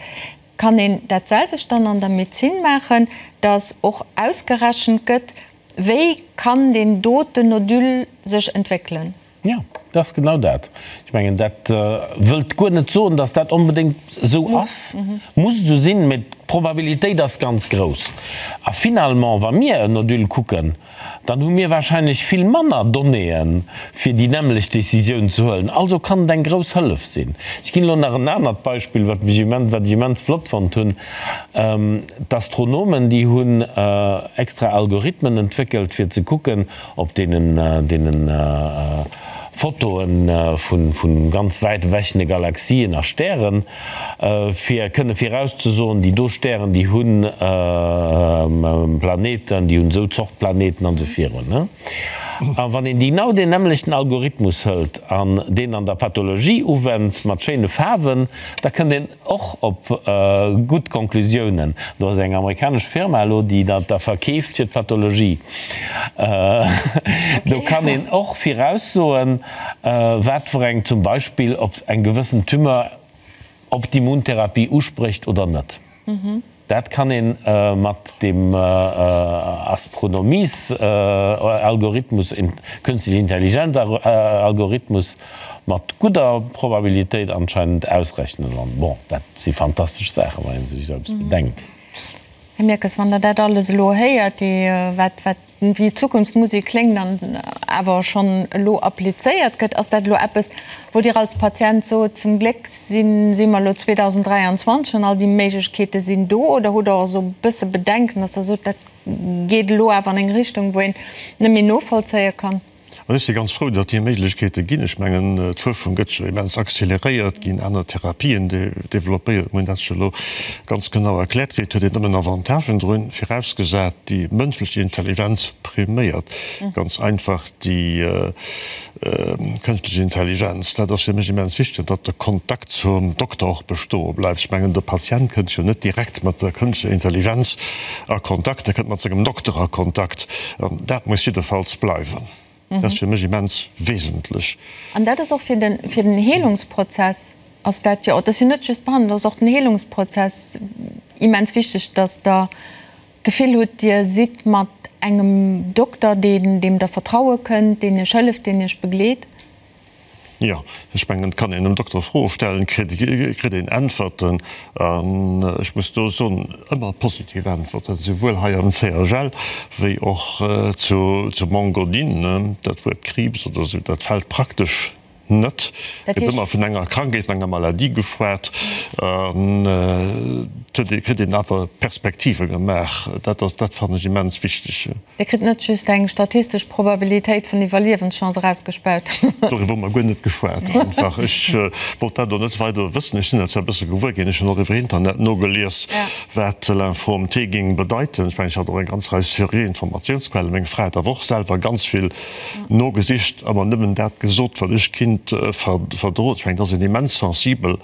Kann een dat selwecht dann an der Medezin maachen, datt och ausgerechent gëtt, wéi kann deen doten Nodule sech entwéckelen? Jo, dat ass genau dat. Ech mengen, dat wëllt guer net soen, datt dat onbedéngt esou ass, muss esou sinn, mä d'Probabilitéit ass ganz grouss. A finalement, wa mir en Nodule kucken, dann hu mir wahrscheinlech vill manner Donnéeën, fir déi nämmlecht Décisioun ze huelen. Also kann et eng grouss Hëllef sinn. Ech ginn elo nach en anert Beispill, wat mech immens, wat ech immens flott fonnt hunn. D'Astronomen, déi hunn extra Algorithmen entwéckelt, fir ze kucken, Op deenen deenen Fotoen vun vun ganz wäit ewechene Galaxien a Stären, fir kënne virauszesoen, déi do Stären, déi hunn Planeten, déi hunn esou Zort Planeten an esou virun. A wann een genau deen nämmlechten Algorithmus hëlt an deen an der Pathologie uwennt, mat schéine Faarwen, da kënnt een och op gutt Konklusiounen. Do ass eng amerikanesch Firma elo, déi dat da verkeeft fir d'Pathologie. Do kann een och viraussoen, wat fir eng, zum Beispill ob eng gewëssen Tumeur op d'Immuntherapie usprécht oder net. Dat kann ee mat deem Astronomiesalgorithmus, Künstliche Intelligenz Algorithmus, mat gudder Probabilitéit anscheinend ausrechnen. An bon, dat si fantastesch Saachen, wann ee sech esou eppes bedenkt. Här Mirkes, wann Der dat alles elo héiert, déi, wat, wat wéi Zukunftsmusek kléngt an awer schonn elo applizéiert gëtt, ass dat elo eppes, wou Dir als Patient sot, zum Gléck si si mer elo 2023 an all déi Méiglechkeete sinn do, oder hutt Der och esou e bësse Bedenken, dass Der sot, dat geet elo awer an eng Richtung, wou een net méi novollzéie kann? An ech si ganz frou, datt déi Méiglechkeete ginn. Ech mengen, d'Fuerschung gëtt jo immens accéléréiert, ginn aner Therapien développéiert. Mir hunn dat jo elo ganz genau erkläert kritt. Huet een nëmmen Avantagen drun, virausgesat déi mënschlech Intelligenz priméiert. Ganz einfach déi kënschtlech Intelligenz. Dat ass fir mech immens wichteg, datt de Kontakt zum Dokter och bestoe bleift. Ech mengen, de Patient kënnt jo net direkt mat der kënschtlecher Intelligenz a Kontakt, e kënnt mat sengem Dokter a Kontakt. An dat muss jiddefalls bleiwen. Dat ass fir mech immens wesentlech. An dat ass och fir den, fir den Heelungsprozess ass dat jo, dat ass jo net just d'Behandlung, dat ass och den Heelungsprozess immens wichteg, dass Der d'Gefill hutt, Dir sidd mat engem Dokter, deen, deem Der vertraue kënnt, deen Iech hëlleft, deen Iech begleet. Jo, ech mengen, et kann een dem Dokter Froe stellen, kritt een Äntwerten. An ech muss do soen, ëmmer positiv Äntwerten, souwuel hei am CHL wéi och zu Mont-Godin. Dat Wuert Kriibs oder esou, dat fält praktesch net. Et gëtt ëmmer vun enger Krankheet, vun enger Maladie geschwat. An et kritt een awer Perspektive gemaach. Dat ass, dat fannen ech immens wichteg. Dir kritt net just eng statistesch Probabilitéit vun Iwwerliewenschance erausgespaut. Doriwwer hu mer guer net geschwat einfach. Ech wollt dat och net weider wëssen. Ech sinn dat zwar e bësse gewuer ginn, ech hunn och iwwer Internet nogelies, wat Lymphom T géing bedeiten. Ech mengen, ech hat och eng ganz Rei seriö Informatiounsquellen. Meng Fra hat awer och selwer ganz vill nogesicht a mer nëmmen dat gesot, wat ech kinnt verdroen. Ech mengen, et ass een immens sensibel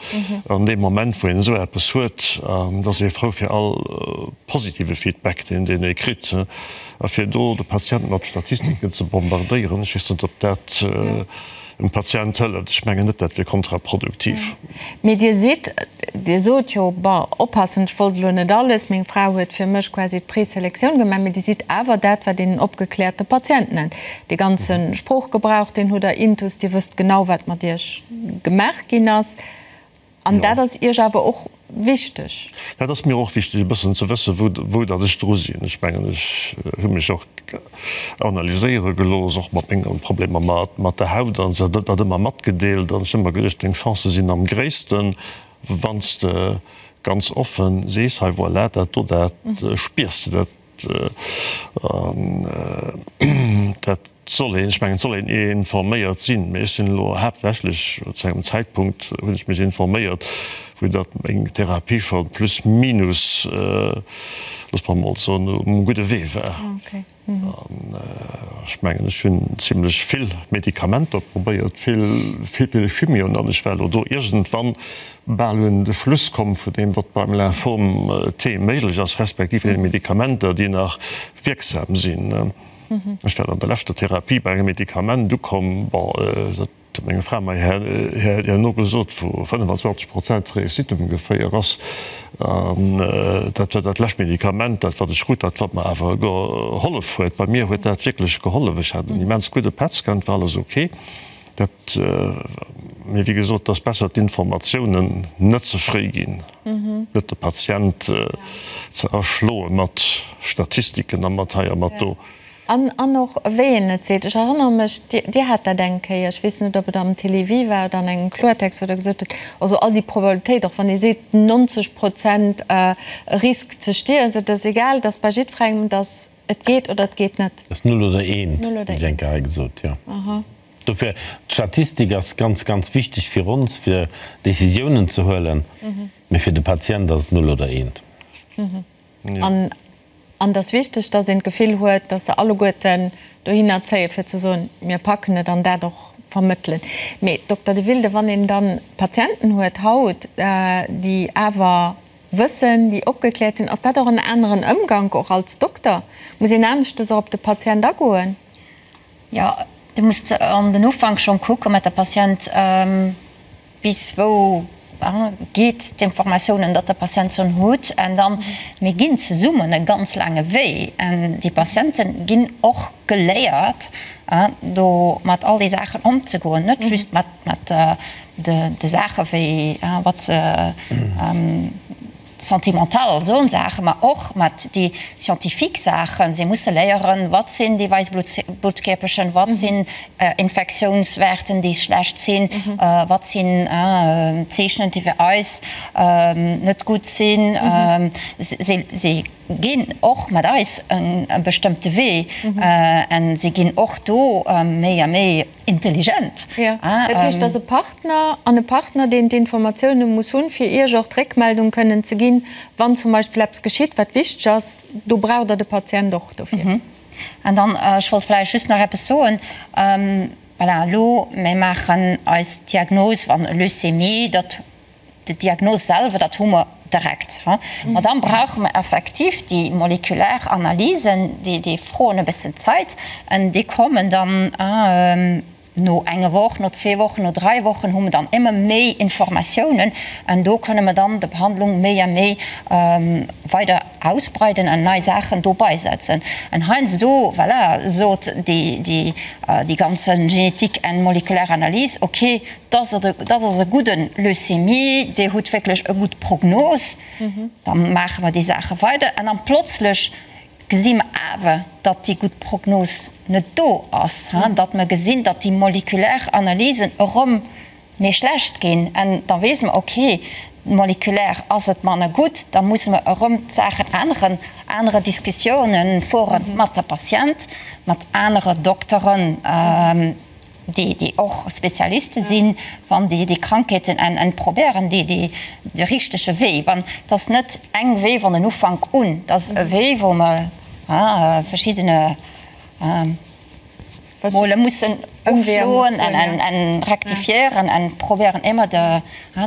an deem Moment, wou een esou eppes huet. An et ass ee frou fir all positive Feedback, deen deen ee kritt, a fir do de Patient mat Statistiken ze bombardéieren, ech weess net, ob dat dem Patient hëlleft. Ech mengen net, dat wier kontraproduktiv. Mee Dir sidd, Dir sot jo, bon, oppassen, ech wollt elo net alles, meng Fra huet fir mech quasi d'Preselektioun gemaach, mee Dir sidd awer dat, wat een en opgekläerte Patient nennt. Dee ganze Sproochgebrauch, deen hutt Der intus, Dir wësst genau, wat mat Iech gemaach ginn ass. An dat ass Iech awer och wichteg? Dat ass mir och wichteg, e bëssen ze wëssen, wou, wou datt ech dru sinn. Ech mengen, ech hu mech och analyséiere gelooss, och mat menge Problemer mat, mat der Haut an esou, dat ëmmer matgedeelt. An ech hu ëmmer geduecht, deng Chancë sinn am gréissten, wann s de ganz offen sees, hei voilà, dat do, dat spiers de, dat Dat soll een, ech mengen, et soll een informéiert sinn, mee ech sinn elo haaptsächlech, zu engem Zäitpunkt hunn ech mech informéiert, wou datt meng Therapie scho plus minus, looss mer emol soen, um gudde Wee war. An ech mengen, ech hunn zimlech vill Medikamenter probéiert, vill, vill Chimioen, an ech war elo do iergendwann bal un de Schluss komm vun deem, wat beim Lymphom T méiglech ass, respektiv deene Medikamenter, déi nach wierksam sinn. Ech war an der leschter Therapie bei engem Medikament ukomm, bon, dat huet meng Fra mer herno gesot, wou 25 Prozent Réussite ongeféier ass. An dat war dat lescht Medikament, dat wat ech krut, dat wat mer awer gehollef huet. Bei mir huet dat wierklech gehollef. Ech hat en immens gudde PET-Scan, et war alles ok. Dat, mee wéi gesot, et ass besser d'Informatiounen net ze fréi ginn, net de Patient ze erschloe mat Statistiken a mat hei a mat do. An, an och wéi een et seet. Ech erënnere mech, Dir hat dat eng Kéier, ech weess net, ob et am Télévie war oder an engem Kloertext, wou Der gesot hutt, also all déi Probabilitéit, och wann ee seet 90 Prozent Risk ze stierwen, et ass egal, et ass bei jiddwerengem, dass et geet oder et geet net. Et ass null oder eent, hunn ech eng Kéier hei gesot, jo. Dofir, d'Statistik ass ganz, ganz wichteg fir ons, fir Décisiounen ze huelen, mee fir de Patient ass et null oder eent. An. An et ass wichteg, dass een d'Gefill huet, dass se alleguerten dohinner zéien, fir ze soen, mir packen et an dat och vermëttelen. Mee, Dokter De Wilde, wann een da Patienten huet haut, déi awer wëssen, déi opgekläert sinn, ass dat och en aneren Ëmgank och als Dokter? Muss een aneschtes och op de Patient agoen? Jo, du muss an den Ufank schonn kucken mat der Patient, Bis wou geet d'Informatiounen, datt de Patient schon hutt? An dann, mir ginn zesummen e ganz laange Wee an déi Patiente ginn och geléiert, do mat all déi Saachen ëmzegoen, net just mat de Saache wéi wat se sentimental soen Saachen, ma och mat déi scientifique Saachen. Si musse léieren, wat sinn déi weiss Bluttkierperchen, wat sinn Infektiounswäerten, déi schlecht sinn, wat sinn Zeechnen, déi fir eis net gutt sinn. Si ginn och mat eis e bestëmmte Wee a si ginn och do méi a méi Intelligent. Jo, dat heescht, dass e Partner an e Partner, deen d'Informatioune muss hunn, fir Iech och d'Réckmeldung kënnen ze ginn, wann zum Beispill eppes geschitt, wat wichteg ass, do braucht Der de Patient och dofir. An dann, ech wollt vläicht just nach eppes soen, voilà, elo, mir maachen eis d'Diagnos, wann e Leucémie, dat D'Diagnos selwer, dat hu mer direkt. Ma dann brauche mer effektiv déi molekulär Analysen, déi froen e bëssen Zait an déi kommen dann no enger Woch, no zwee Wochen, no dräi Wochen hu mer dann ëmmer méi Informatiounen an do kënne mer dann der Behandlung méi a méi weider ausbreiden an nei Saachen dobei setzen. An heiansdo, voilà, sot déi ganze Genetik an molekulär Analys, okay, Dass ass e gudde Leucémie, Dir hutt wierklech e gutt Prognos, da maache mer déi Saache weider. An dann plötzlech gesi mer awer, datt déi gutt Prognos net do ass, datt mer gesinn, datt déi molekulär Analysen erëm méi schlecht ginn. An da weess mer, okay, molekulär ass et manner gutt, da musse mer erëm d'Saachen änneren, anere Diskussiounen fuere mat der Patient, mat anere Dokteren. déi déi och Spezialiste sinn, wann déi déi Krankheeten en en probéieren déi déi de richtege Wee, wann et ass net eng Wee wann en Ufank un, et ass e Wee wou mer verschiddene Mole mussen ofschloen en en en rektifiéieren en probéieren émmer de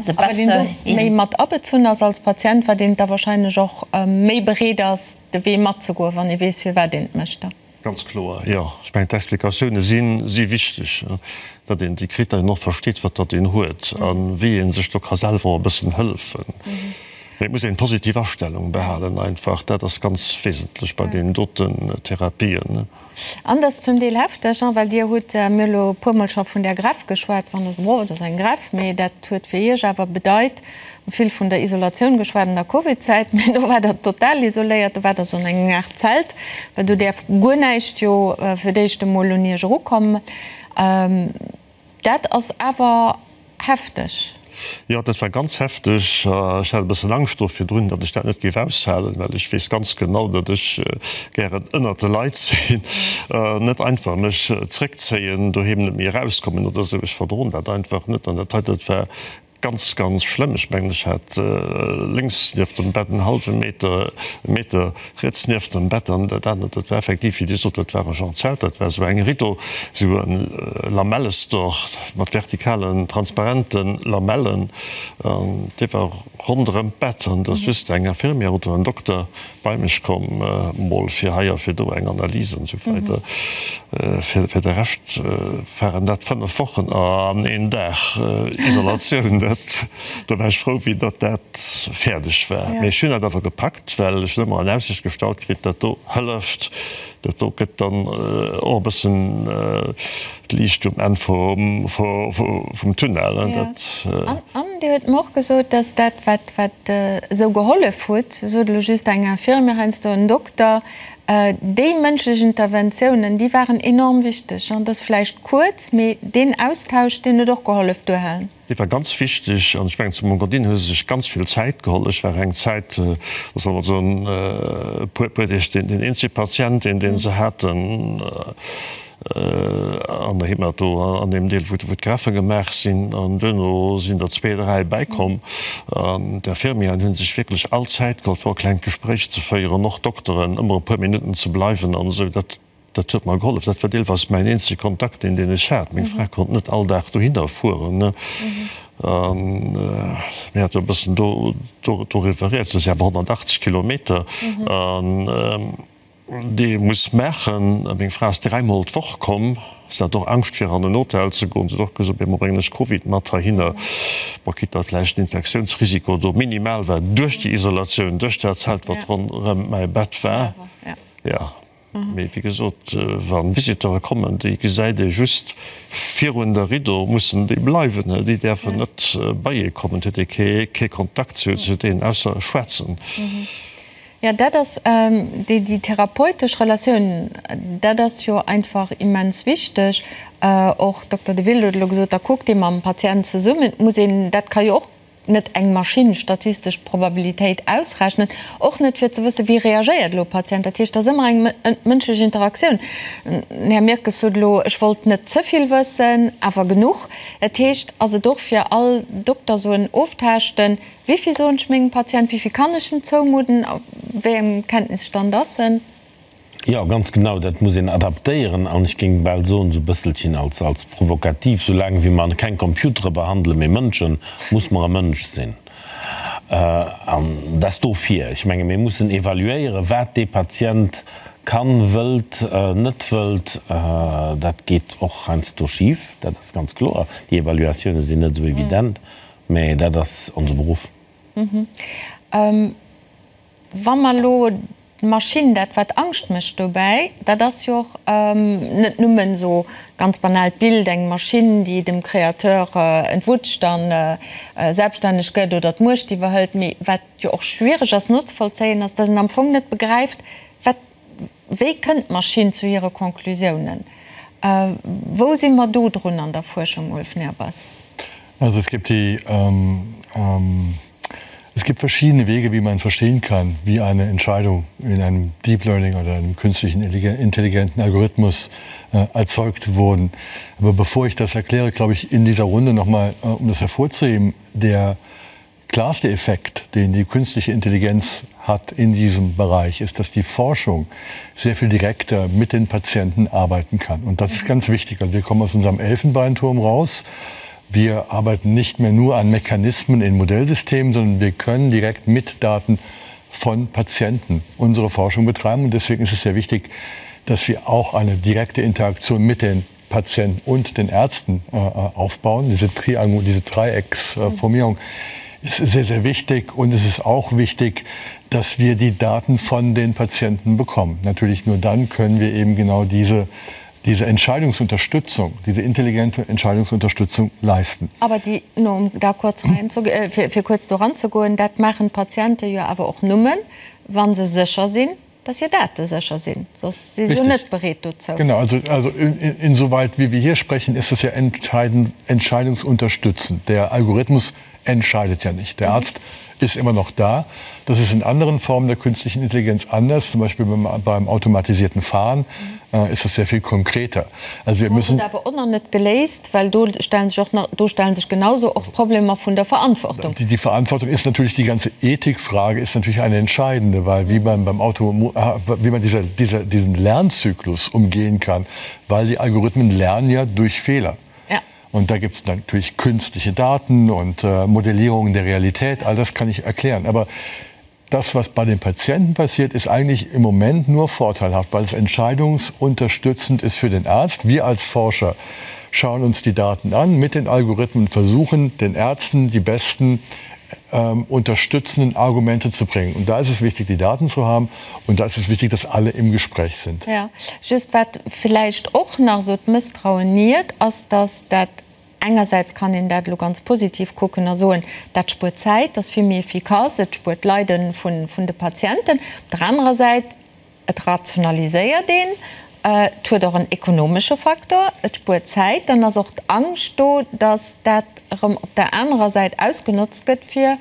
de beste. A wat een do méi mat abezunn ass als Patient, wat een da wahrscheinlech och méi bereet ass de Wee matzegoen, wann ee weess firwat een et mécht da. Ganz kloer, jo. Ech mengen, d'Explikatioune si wichteg, datt een déi Kriterien och versteet, wat datt een huet a wéi ee sech do ka selwer och e bëssen hëllefen. Mee et muss een positiv Astellung behalen einfach, dat ass ganz wesentlech bei deenen doten Therapien. An dat ass zum Deel hefteg, well Dir hutt mir elo e puermol scho vun där Greffe geschwat, wann Der sot, oh, dat ass eng Greffe, mee dat huet fir Iech awer bedeit, Vill vun der Isolatioun geschwat an der Covid-Zäit, mee do war der total isoléiert, do war der sou an engem Aart Zelt, well do däerf guer näischt jo fir d'éischt emol un iech erukommen. Dat ass awer hefteg. Jo, dat war ganz hefteg. Ech hat e bëssen Angscht do virdrun, datt ech dat net géif aushalen, well ech weess ganz genau, datt ech gären ënnert de Leit sinn, net einfach mech zréckzéien, doheem net méi erauskommen oder esou. Ech verdroen dat einfach net an dat hei, dat war Ganz, ganz schlëmm. Ech mengen, ech hat lénks nieft dem Bett en hallwe Meter, e Meter riets nieft dem Bett an dat anert, dat war effektiv, wéi Dir sot, dat war e Genre Zelt, dat war esou eng Rideau, esou e Lamellestor mat vertikalen, transparente Lamellen an dee war ronderëm d'Bett an et ass just eng Infirmière oder en Dokter bei mech komm, mol fir hei a fir do eng Analys an esou weider. Fir de Rescht waren dat 5 Wochen an een Dag Isolatioun. Dat, do war ech frou, wéi datt dat fäerdeg war. Mee ech hunn dat awer gepackt, well ech hunn ëmmer an Aussicht gestallt kritt, dat do hëlleft, dat do gëtt dann och e bëssen D'Liicht um Enn vum Tunnel. An Dir huet mer och gesot, dass dat, wat wat esou gehollef huet, sot elo just eng Infirmière, heiansdo en Dokter, déi mënschlech Interventiounen, déi waren enorm wichteg. An dat ass vläicht kuerz, mee deen Austausch, deen huet och gehollef, duerhalen. Dee war ganz wichteg an ech mengen, zu Mongodin hu se sech ganz vill Zäit geholl. Ech war eng Zäit, solle mer soen, e puer Deeg den eenzege Patient, deen se haten. An der Hemato, an deem Deel, wou d'Greffe gemaach sinn. An duerno sinn der zwee, dräi bäikomm. An d'Infirmieren hu sech wierklech all Zäit geholl, fir och e klengt Gespréich ze féieren, och d'Dokteren, ëmmer e puer Minutten ze bleiwen an esou. Dat, dat huet mer gehollef. Dat war deelweis mäin eenzege Kontakt, deen, deen ech hat. Meng Fra konnt net all Dag dohinner fueren. A mir hate jo e bëssen do, do, doriwwer rieds. Dat si awer 180 Kilometer. An. Dee muss maachen. Meng Fra ass dräimol d'Woch komm. Si hat och Angscht fir an en Hotel ze goen. Si huet och gesot, Op eemol bréngen ech Covid mat heihinner. Bon, quitte datt vläicht den Infektiounsrisiko do minimal war duerch déi Isolatioun, duerch dat Zelt, wat ronderëm mäi Bett war. Jo, mee wéi gesot, wa Visiteure kommen, déi gesäit ee just virun der Riddo, mussen déi bleiwen. Déi däerfen net bei ee kommen. Et huet ee kee Kontakt zu deenen, ausser schwätzen. Jo, dat ass déi, déi therapeutesch Relatioun, dat ass jo einfach immens wichteg. Och Dokter Deville huet elo gesot, da kuckt ee mam Patient zesummen. Et muss een, dat ka jo och net eng Maschinn statistesch d'Probabilitéit ausrechnen, och net fir ze wëssen, wéi reagéiert elo e Patient. Dat heescht, et ass ëmmer eng mënschlech Interaktioun. Den Här Mirkes sot elo, ech wollt net ze vill wëssen, awer genuch. Dat heescht, ass et och fir all Dokter esou en Oftaaschten, Wéivill soen ech mengem Patient, wéivill kann ech em zoumudden, op wéi engem Kenntnisstand ass en? Jo, ganz genau, dat muss een adaptéieren an ech géing bal soen, esou e bësselchen als, als provokativ, soulaang wéi mer keng Computere behandelen, mee Mënschen, muss mer e Mënsch sinn. An dat ass dofir, ech menge mir mussen evaluéieren, wat dee Patient kann, wëllt, net wëllt. Dat geet och heiansdo schif, dat ass ganz kloer. Déi Evaluatioune sinn net esou evident. Mä dat ass onse Beruff. Wa mer elo d'Maschinn, dat wat Angscht mécht dobäi, dat ass jo och net nëmmen esou ganz banaalt Bild, eng Maschinn, déi dem Créateur entwutscht a selbststänneg gëtt oder d'Muecht iwwerhëlt, mee wat jo och schwiereg ass nozevollzéien, ass, datt een am Fong net begräift, wat Wéi kënnt d'Maschinn zu hire Conclusiounen? Wou si mer do drun an der Fuerschung, Ulf Nehrbass? Also es gibt die, ähm, ähm, es gibt verschiedene Wege, wie man verstehen kann, wie eine Entscheidung in einem Deep Learning oder einem künstlichen intelligenten Algorithmus äh, erzeugt wurden. Aber bevor ich das erkläre, glaube ich, in dieser Runde noch mal, äh, um das hervorzuheben, der klarste Effekt, den die künstliche Intelligenz hat in diesem Bereich, ist, dass die Forschung sehr viel direkter mit den Patienten arbeiten kann. Und das ist ganz wichtig. Also wir kommen aus unserem Elfenbeinturm raus. Wir arbeiten nicht mehr nur an Mechanismen in Modellsystemen, sondern wir können direkt mit Daten von Patienten unsere Forschung betreiben. Und deswegen ist es sehr wichtig, dass wir auch eine direkte Interaktion mit den Patienten und den Ärzten äh, aufbauen. Diese, Triangul, diese Dreiecksformierung ist sehr, sehr wichtig. Und es ist auch wichtig, dass wir die Daten von den Patienten bekommen. Natürlich nur dann können wir eben genau diese, diese Entscheidungsunterstützung, diese intelligente Entscheidungsunterstützung leisten. Aber déi, nur um da kurz reinzu, äh, fir, fir kuerz do ranzegoen, dat maachen d'Patiente jo awer och nëmmen, wa se sécher sinn, dass hir Date sécher sinn, soss si se jo net bereet dozou. Genau, also, also in, insoweit wie wir hier sprechen, ist es ja entscheidend, entscheidungsunterstützend. Der Algorithmus entscheidet ja nicht. Der Arzt ist immer noch da. Das ist in anderen Formen der künstlichen Intelligenz anders, zum Beispiel beim, beim automatisierten Fahren äh, ist das sehr viel konkreter. Also wir müssen awer och nach net geléist, well do stellen sech och nach, do stellen sech genauso och d'Problemer vun der Verantwortung. Die, die Verantwortung ist natürlich die ganze Ethikfrage ist natürlich eine entscheidende, weil wie man beim Auto äh, wie man dieser, dieser, diesen Lernzyklus umgehen kann, weil die Algorithmen lernen ja durch Fehler. Ja. Und da gibt es natürlich künstliche Daten und äh, Modellierungen der Realität, all das kann ich erklären. Aber das, was bei den Patienten passiert, ist eigentlich im Moment nur vorteilhaft, weil es entscheidungsunterstützend ist für den Arzt. Wir als Forscher schauen uns die Daten an mit den Algorithmen, versuchen den Ärzten die besten ähm, unterstützenden Argumente zu bringen. Und da ist es wichtig, die Daten zu haben und da ist es wichtig, dass alle im Gespräch sind. Ja, just wat villäicht och nach esou d'Mësstrauen niert, ass, dass dat Engersäits kann een dat elo ganz positiv kucken a soen, dat spuert Zäit, ass vill méi efficace, et spuert d'Leide vun de Patienten. Op der anerer Säit, et rationaliséiert een, et huet och en ekonomesche Faktor, et spuert Zäit. Dann ass och d'Angscht do, datt dat erëm op der anerer Säit ausgenotzt gëtt, fir.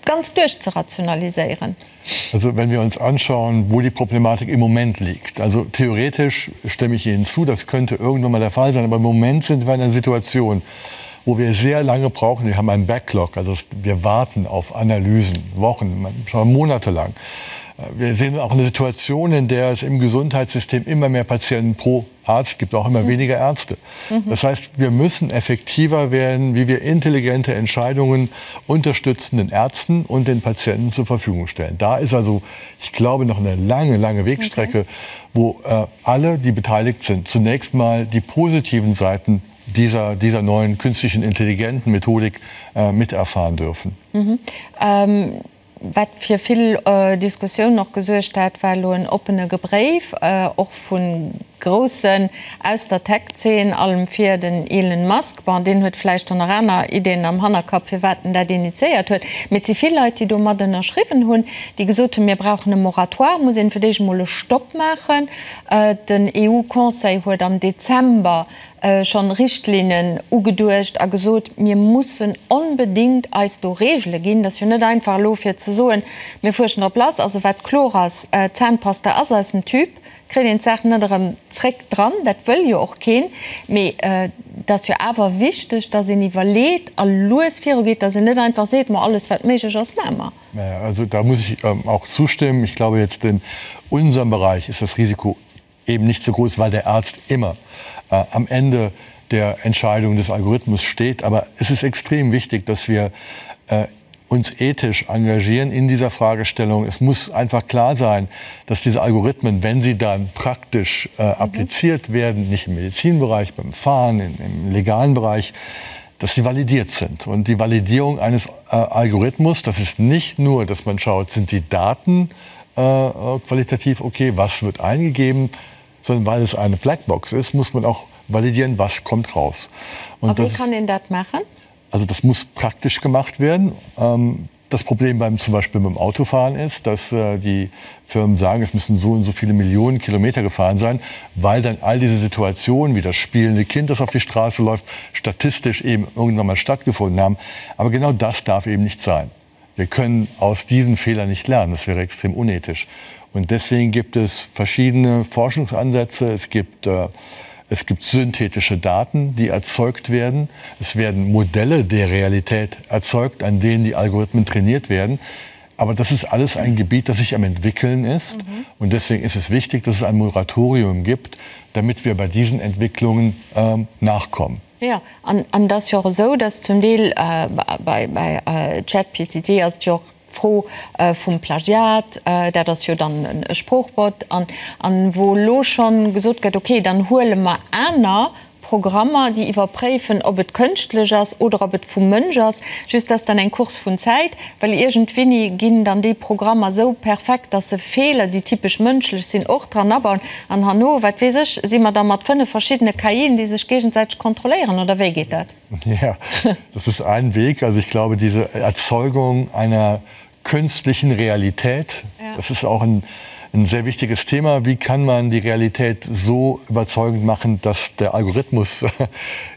ganz duerchzerationaliséieren. Also wenn wir uns anschauen, wo die Problematik im Moment liegt. Also theoretisch stimme ich Ihnen zu, das könnte irgendwann mal der Fall sein, aber im Moment sind wir in einer Situation, wo wir sehr lange brauchen. Wir haben einen Backlog, also wir warten auf Analysen, Wochen, schon monatelang. Wir sehen auch eine Situation, in der es im Gesundheitssystem immer mehr Patienten pro Arzt gibt, auch immer mhm. weniger Ärzte. Mhm. Das heißt, wir müssen effektiver werden, wie wir intelligente Entscheidungen unterstützenden Ärzten und den Patienten zur Verfügung stellen. Da ist also, ich glaube, noch eine lange, lange Wegstrecke, okay. wo äh, alle, die beteiligt sind, zunächst mal die positiven Seiten dieser, dieser neuen künstlichen intelligenten Methodik äh, miterfahren dürfen. Mhm. Ähm Wat fir vill Diskussiounen och gesuergt hat, war elo en oppene Bréif, och vu Groussen aus der Tech-Zeen, allem vir den Elon Musk. Bon, deen huet vläicht dann nach aner Ideeën am Hannerkapp, firwat en dat initiéiert huet. Mee et si vill Leit, déi do mat ënnerschriwwen hunn, déi gesot hunn, mir brauchen e Moratoire, muss een fir d'éischt emol e Stopp maachen. Den EU-Conseil huet am Dezember schonn Richtlinnen ugeduecht a gesot, mir mussen onbedéngt eis do Regele ginn. Dat ass jo net einfach elo fir ze soen, mir fuerschen drop lass. Also wat kloer ass, Zahnpasta ass aus dem Tube, kritt een d'Saach net erëm zréck dran, dat wëll jo och keen. Mee et ass jo awer wichteg, datt een iwwerleet a lues virugeet, datt een net einfach seet, ma alles wat méiglech ass, maache mer. Also da muss ich auch zustimmen. Ich glaube jetzt in unserem Bereich ist das Risiko eben nicht so groß, weil der Arzt immer äh, am Ende der Entscheidung des Algorithmus steht. Aber es ist extrem wichtig, dass wir äh, uns ethisch engagieren in dieser Fragestellung. Es muss einfach klar sein, dass diese Algorithmen, wenn sie dann praktisch äh, mhm. appliziert werden, nicht im Medizinbereich, beim Fahren, in, im legalen Bereich, dass sie validiert sind. Und die Validierung eines äh, Algorithmus, das ist nicht nur, dass man schaut, sind die Daten äh, äh, qualitativ okay, was wird eingegeben, sondern weil es eine Blackbox ist, muss man auch validieren, was kommt raus. Und das, wie kann een dat maachen? Also das muss praktisch gemacht werden. Ähm, das Problem beim zum Beispiel beim Autofahren ist, dass äh, die Firmen sagen, es müssen so und so viele Millionen Kilometer gefahren sein, weil dann all diese Situationen wie das spielende Kind, das auf die Straße läuft, statistisch eben irgendwann mal stattgefunden haben. Aber genau das darf eben nicht sein. Wir können aus diesen Fehlern nicht lernen. Das wäre extrem unethisch. Und deswegen gibt es verschiedene Forschungsansätze. Es gibt, äh, es gibt synthetische Daten, die erzeugt werden. Es werden Modelle der Realität erzeugt, an denen die Algorithmen trainiert werden. Aber das ist alles ein Gebiet, das sich am entwickeln ist. Mhm. Und deswegen ist es wichtig, dass es ein Moratorium gibt, damit wir bei diesen Entwicklungen ähm, nachkommen. Jo, an et ass jo och esou, dass zum Deel bei ChatGPT ass et jo och d'Fro vum Plagiat, dat ass jo dann e Sproochbot, an wou elo schonn gesot gëtt, okay, dann huele mer aner Programmer, déi iwwerpréifen, ob et kënschtlech ass oder ob et vum Mënsch ass. Just dass dann eng Course vun Zäit, well iergendwéini ginn dann déi Programmer esou perfekt, dass se Feeler, déi typesch mënschlech sinn, och dran abauen. An herno, wat weess ech, si mer da mat 5 verschiddene KIen, déi sech géigesäiteg kontrolléieren, oder wéi geet dat? Ja, das ist ein Weg. Also ich glaube, diese Erzeugung einer künstlichen Realität, ja. das ist auch ein, ein sehr wichtiges Thema. Wie kann man die Realität so überzeugend machen, dass der Algorithmus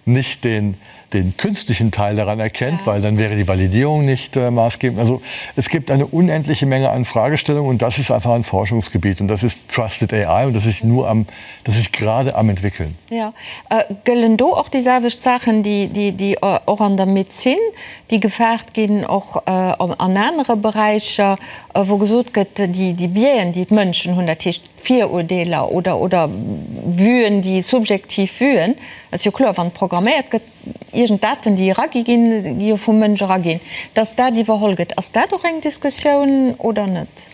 nicht den, den künstlichen Teil daran erkennt, ja. weil dann wäre die Validierung nicht äh, maßgebend. Also es gibt eine unendliche Menge an Fragestellungen und das ist einfach ein Forschungsgebiet und das ist Trusted AI und das ist nur am das ist gerade am entwickeln. Ja. Äh, gëllen do och déi selwecht Saachen, déi, déi, déi äh, och an der Medezin, déi gefaart ginn, och äh, an anere Beräicher, äh, wou gesot gëtt, déi, déi Biaisen, déi d'Mënschen hunn, dat heescht Virurdeeler oder, oder Vuen, déi subjektiv Vuen, ass jo kloer, wann programméiert gëtt, iergend Daten, déi eragi ginn, gi jo vum Mënsch eraginn, dass dat iwwerholl gëtt. Ass dat och eng Diskussioun oder net?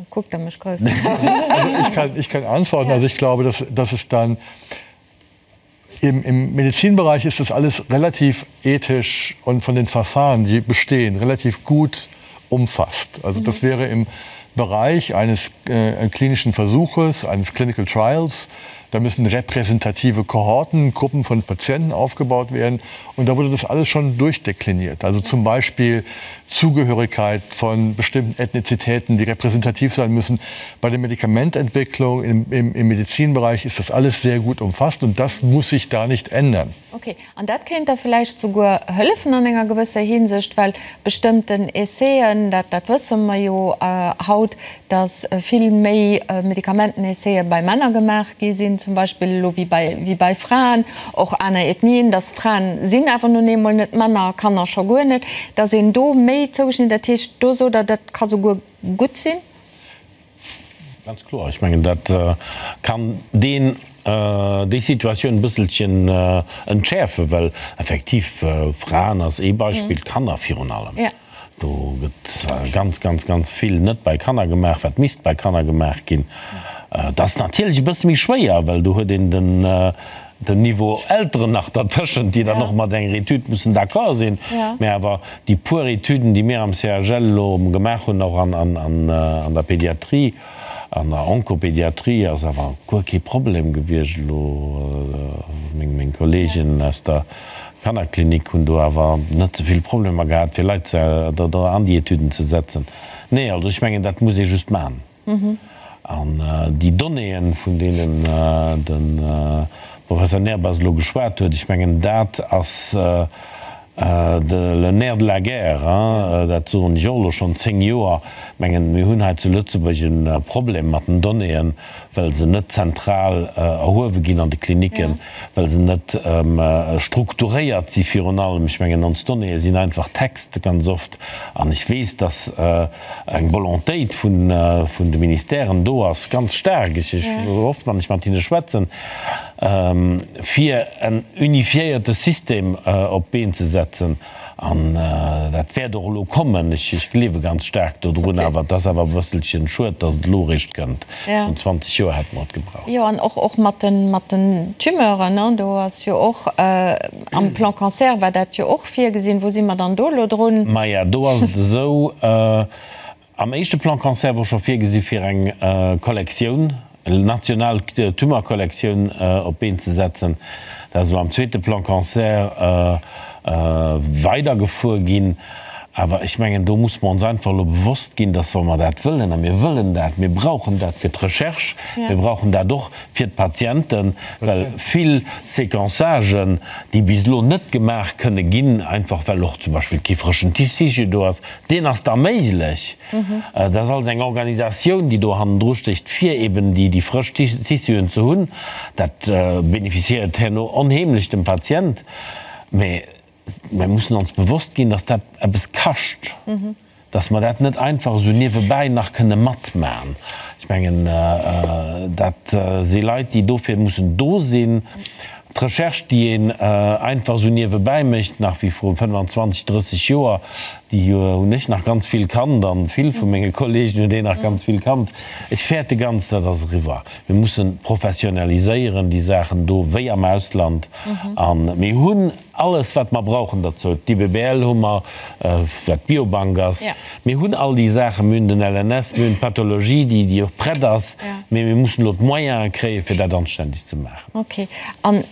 Kuckt Der mech grouss un. Also ich kann, ich kann antworten. Also ich glaube, dass, dass es dann im, im Medizinbereich ist das alles relativ ethisch und von den Verfahren, die bestehen, relativ gut umfasst. Also das mhm. wäre im Bereich eines äh, klinischen Versuches, eines Clinical Trials. Da müssen repräsentative Kohorten, Gruppen von Patienten aufgebaut werden. Und da wurde das alles schon durchdekliniert. Also zum Beispiel Zugehörigkeit von bestimmten Ethnizitäten, die repräsentativ sein müssen. Bei der Medikamententwicklung im, im, im Medizinbereich ist das alles sehr gut umfasst und das muss sich da nicht ändern. Okay. An dat kéint da vläicht souguer hëllefen an enger gewësser Hinsicht, well bestëmmten Essaiën, dat, dat wësse mer jo haut, dass vill méi Medikamentenessaie bei Männer gemaach gi sinn zum Beispill elo wéi bei, wéi bei Fraen, och aner Ethnien, dass Fraen sinn awer nun eemol net Männer, Kanner scho guer net, dass een do méi zougeschnidden, dat heescht, do sot Der, dat ka souguer gutt sinn? Ganz kloer. Ech mengen, dat kann deen, déi Situatioun e bësselchen entschäerfen, well effektiv, Fraen ass ee Beispill, Kanner virun allem. Do gëtt ganz, ganz, ganz vill net bei Kanner gemaach, wat misst bei Kanner gemaach ginn. Dat ass natierlech e bësse méi schwéier, well do huet een den, den Niveau Elteren nach dertëschent, déi dann och mat enger Etüd mussen d'accord sinn. Mä awer déi puer Etüden, déi mir am CHL elo gemaach hunn, och an der Pédiatrie, an der Onkopédiatrie, ass awer guer kee Problem gewiescht elo. Meng Kollegen aus der Kannerklinik hunn do awer net esou vill Problemer gehat, fir Leit do an déi Etüden ze setzen. Nee, also ech mengen, dat muss ee just maachen. An déi Donnéeën, vun deenen de Professor Nehrbass elo geschwat huet, ech mengen, dat ass le nerf de la guerre, dat soen ech och elo schonn zéng Joer. Ech mengen, mir hunn hei zu Lëtzebuerg e Problem mat den Donnéeën, well se net zentral erhuewe ginn an de Klinicken, well se net strukturéiert si virun allem. Ech mengen, ons Donnéeë sinn einfach Text ganz oft. An ech weess, dass eng Volontéit vun de Ministèren do ass, ganz staark, ech oft wann ech mat hinne schwätzen, fir en unifiéierte System op d'Been ze setzen. An dat wäert och elo kommen. Ech gleewe ganz staark dodrun. Awer et ass awer e bësselchen schued, datt et elo eréischt kënnt. Vrun 20 Joer hätte mer et gebraucht. Jo, an och och mat de mat den Tumeuren, ne, do ass jo och am Plan Cancer war dat jo och virgesinn. Wou si mer dann do elo drun? Maja, do ass et esou, Am éischte Plan Cancer wor scho virgesi fir eng Kollektioun, national Tumorkollektioun op d'Been ze setzen. Dat ass elo am zweete Plan Cancer weidergefuer ginn. Awer ech mengen, do muss mer ons einfach elo bewosst ginn, dass, wa mer dat wëllen, a mir wëllen dat, mir brauchen dat fir d'Recherche, mir brauchen dat och fir d'Patienten, well vill Séquençagen, déi bis elo net gemaach kënne ginn, einfach well och zum Beispill kee frëschen Tissu do ass, Deen ass da méiglech. Dat ass alles eng Organisatioun, déi do hannendru stécht, fir eben déi frësch Tissuen ze hunn. Dat bénéficiéiert herno onheemlech dem Patient. Mä mir mussen ons bewosst ginn, dass dat eppes kascht, dass mer dat net einfach esou niewebäi nach kënne matmachen. Ech mengen, dat si Leit, déi dofir mussen do sinn. D'Recherche, déi een einfach esou niewebäi mécht, nach wéi vru 25, 30 Joer, déi hunn ech nach ganz vill kannt an vill vu menge Kollegen hunn déi nach ganz vill kannt. Ech fäerte ganz, dat ass eriwwer. Mir mussen professionaliséieren déi Saachen do, wéi am Ausland. A mir hunn alles, wat mer brauchen derzou. D'IBBL hu mer, wat d'Biobank ass. Mir hunn all déi Saachen. Mir hunn den LNS, mir hunn d'Pathologie, déi och prett ass. Mee mir mussen elo d'Moyene kréien, fir dat anständeg ze maachen. Ok. An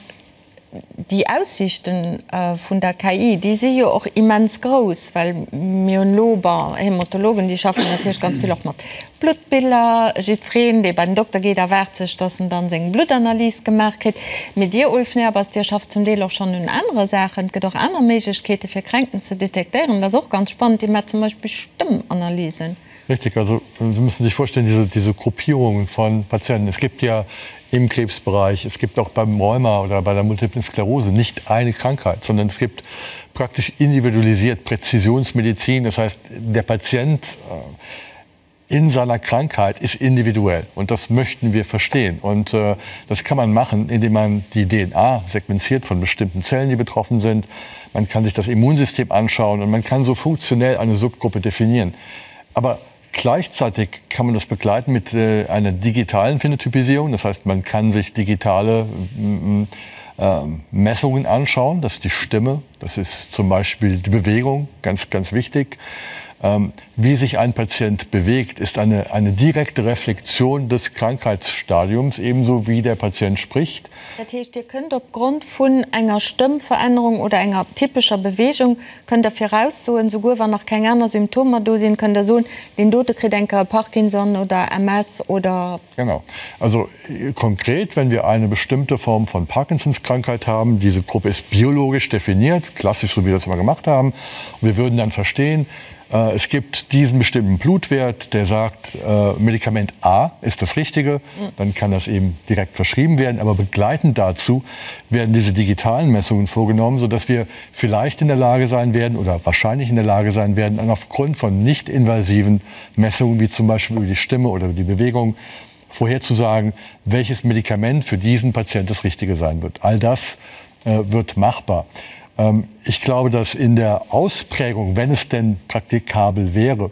déi Aussiichten vun der KI, déi si jo och immens grouss, well mir hunn elo, bon, Hämatologen, déi schaffen natierlech ganz vill och mat Bluttbiller. Jiddwereen, dee bei den Dokter geet, erwaart sech, dass en dann seng Bluttanalys gemaach kritt. Mee Dir, Ulf Nehrbass, Dir schafft zum Deel och schonn un anere Saachen. Et gëtt och aner Méiglechkeete fir Kränkten ze detektéieren. Dat ass och ganz spannend. Dir maacht zum Beispill Stëmmanalysen. Richtig, also Sie müssen sich vorstellen, diese, diese Gruppierungen von Patienten. Es gibt ja im Krebsbereich, es gibt auch beim Rheuma oder bei der Multiplen Sklerose nicht eine Krankheit, sondern es gibt praktisch individualisiert Präzisionsmedizin. Das heißt, der Patient äh, in seiner Krankheit ist individuell und das möchten wir verstehen. Und äh, das kann man machen, indem man die DNA sequenziert von bestimmten Zellen, die betroffen sind. Man kann sich das Immunsystem anschauen und man kann so funktionell eine Subgruppe definieren. Aber gleichzeitig kann man das begleiten mit äh, einer digitalen Phänotypisierung. Das heißt, man kann sich digitale äh, Messungen anschauen. Das ist die Stimme, das ist zum Beispiel die Bewegung, ganz, ganz wichtig. Ähm, wie sich ein Patient bewegt, ist eine, eine direkte Reflexion des Krankheitsstadiums, ebenso wie der Patient spricht. Dat heescht, Dir kënnt opgrond vun enger Stëmmverännerung oder enger typescher Bewegung kënnt Der viraussoen, souguer wann nach keng aner Symptomer do sinn, kënnt Der soen, deen dote kritt eng Kéier Parkinson oder MS oder. Genau. Also konkret, wenn wir eine bestimmte Form von Parkinsonskrankheit haben, diese Gruppe ist biologisch definiert, klassisch so wie wir das immer gemacht haben, und wir würden dann verstehen, äh, es gibt diesen bestimmten Blutwert, der sagt, äh, Medikament A ist das Richtige, dann kann das eben direkt verschrieben werden. Aber begleitend dazu werden diese digitalen Messungen vorgenommen, sodass wir vielleicht in der Lage sein werden oder wahrscheinlich in der Lage sein werden, dann aufgrund von nicht invasiven Messungen, wie zum Beispiel über die Stimme oder über die Bewegung, vorherzusagen, welches Medikament für diesen Patient das Richtige sein wird. All das äh, wird machbar. Ähm, ich glaube, dass in der Ausprägung, wenn es denn praktikabel wäre,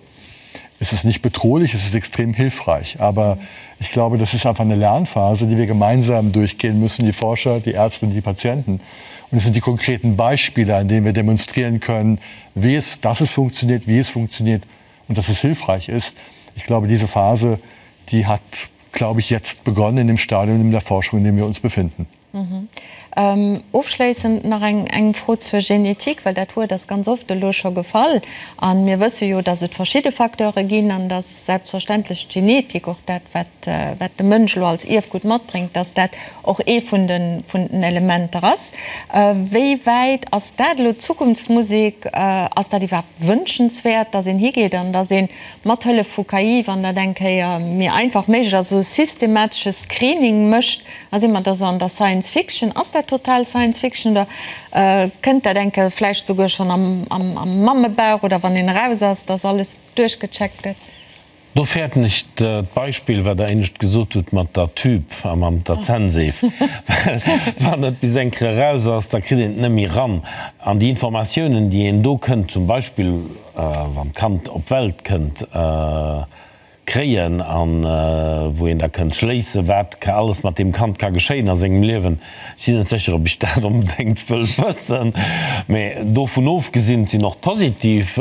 ist es nicht bedrohlich, es ist extrem hilfreich. Aber ich glaube, das ist einfach eine Lernphase, die wir gemeinsam durchgehen müssen, die Forscher, die Ärzte und die Patienten. Und es sind die konkreten Beispiele, an denen wir demonstrieren können, wie es, dass es funktioniert, wie es funktioniert und dass es hilfreich ist. Ich glaube, diese Phase, die hat, glaube ich, jetzt begonnen in dem Stadium in der Forschung, in dem wir uns befinden. Ofschléissend nach eng eng Fro zur Genetik, well dat Wuert ass ganz oft elo scho gefall. A mir wësse jo, datt et verschidde Facteure ginn an datt selbstverständlech d'Genetik, och dat wat wat de Mënsch elo als Ierfgut matbréngt, datt dat och ee vun de vun den Elementer ass. Wéi wäit ass dat elo Zukunftsmusek? Ass dat iwwerhaapt wënschenswäert, datt een higeet an datt een mat Hëllef vu KI, wann dat eng Kéier méi einfach méiglech ass, esou e systematesche Screening mécht? A si mer da sou an der Science Fiction? Ass dat total Science Fiction oder kënnt dat eng Kéier vläicht souguer schonn am Mammebauch oder wann een eraus ass, dass alles duerchgecheckt gëtt? Do fäerten ech d'Beispill, wat Der éinescht gesot hutt mat der Tube a mat der Zännseef. Well wann et bis eng Kéier eraus ass, da kritt een et net méi eran. An déi Informatiounen, déi een do kënnt, zum Beispill wann d'Kand op d'Welt kënnt, Kréien an wou een da kënnt schléissen, wat ka alles mat deem Kand ka geschéien a sengem Liewen. Ech sinn net sécher, ob ech dat onbedéngt wëll wëssen. Mä dovun ofgesinn, et sinn och positiv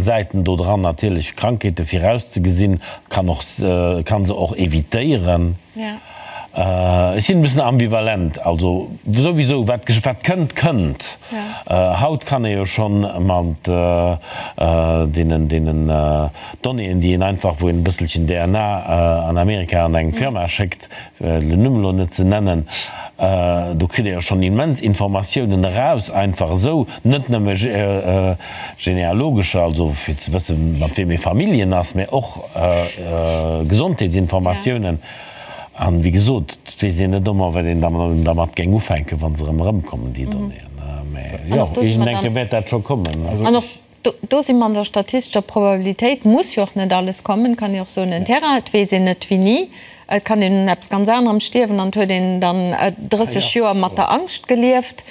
Säiten do dran natierlech, Krankheete virauszegesinn, kann och, kann se och évitéieren. Ech sinn e bëssen ambivalent. Also souwisou, wat wat kënnt, kënnt. Haut kann ee jo schonn mat deenen deenen Donnéeën, déi een einfach, wou een e bësselchen DNA an Amerika an eng Firma schéckt, fir den Numm elo net ze nennen, do kritt ee jo schonn immens Informatiounen eraus, einfach esou, net nëmme genealogescher, also fir ze wëssen, mat weem ee Familljen ass, mä och Gesondheetsinformatiounen. An, wéi gesot, et weess een net ëmmer, wat een dermat géing ufänken, wa se erëm erëmkommen, déi Donnéeën. Mä jo, iergendeng Kéier wäert dat scho kommen. An och do si mer an der statistescher Probabilitéit, muss jo och net alles kommen, kann ee och soen, en Terrain, et weess een net wéini, et kann een un eppes ganz anerem stierwen an et huet een dann 30 Joer mat der Angscht gelieft.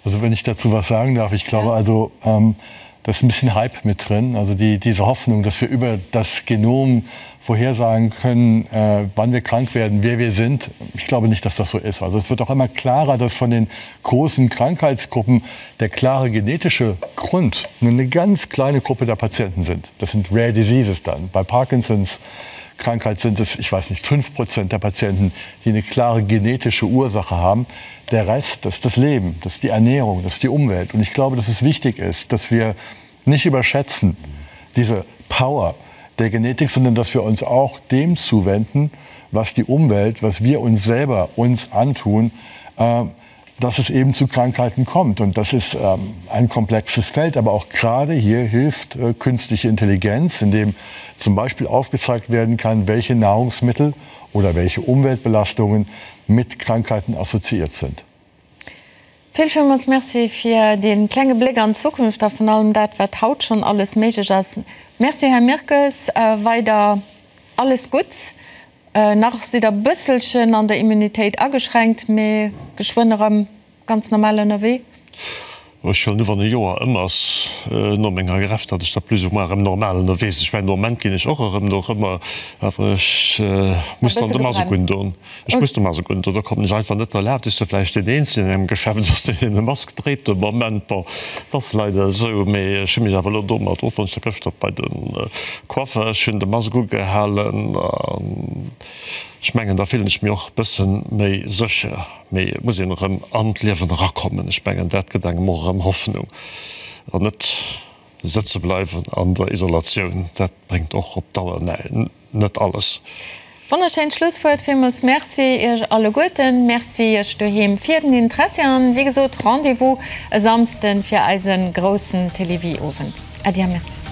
Also wenn ich dazu was sagen darf, ich glaube also, da ist ein bisschen Hype mit drin, also die, diese Hoffnung, dass wir über das Genom vorhersagen können, äh, wann wir krank werden, wer wir sind. Ich glaube nicht, dass das so ist. Also es wird auch immer klarer, dass von den großen Krankheitsgruppen der klare genetische Grund nur eine ganz kleine Gruppe der Patienten sind. Das sind Rare Diseases dann. Bei Parkinsons Krankheit sind es, ich weiß nicht, 5% der Patienten, die eine klare genetische Ursache haben. Der Rest, das ist das Leben, das ist die Ernährung, das ist die Umwelt. Und ich glaube, dass es wichtig ist, dass wir nicht überschätzen diese Power der Genetik, sondern dass wir uns auch dem zuwenden, was die Umwelt, was wir uns selber uns antun, äh, dass es eben zu Krankheiten kommt. Und das ist ähm, ein komplexes Feld. Aber auch gerade hier hilft äh, künstliche Intelligenz, indem zum Beispiel aufgezeigt werden kann, welche Nahrungsmittel oder welche Umweltbelastungen mit Krankheiten assoziiert sind. Vill villmools Merci fir dee klenge Bléck an d'Zukunft a vun allem dat, wat haut schonn alles méiglech ass. Merci, Här Mirkes. Weider alles Gutts. Nach sidd Der e bësselchen an der Immunitéit ageschränkt, mee geschwënn erëm ganz normal ënnerwee. Ech huelen u wann e Joer ëm ass no menger Greffe, datt ech da plus ou moins erëm normal ënnerwee sinn. Ech mengen de Moment ginn ech och erëm nach ëmmer, awer ech muss dann de Mask undon. Ech muss de Mask undon, do kommen ech einfach net derlaaft. Ech si vläicht deen eenzegen an engem Geschäft ass, deen e Mask dréit de Moment. Bon, et ass leider esou, mee ech hu mech awer elo domat offonnt. Ech war gëschter bei de Coiffer, ech hunn de Mask ugehalen an ech mengen da fillen ech mech och e bësse méi sécher. Mee et muss een erëm an d'Liewen erakommen. Ech mengen, dat gëtt engem och erëm Hoffnung. An net sëtze bleiwen an der Isolatioun, dat bréngt och op Dauer net alles. Wonnerschéint Schlusswuert. Villmools Merci Iech alleguerten. Merci Iech doheem fir den Interessi. An wéi gesot, Rendez-vous e Samsden fir eise groussen Télévie-Owend. Äddi a Merci.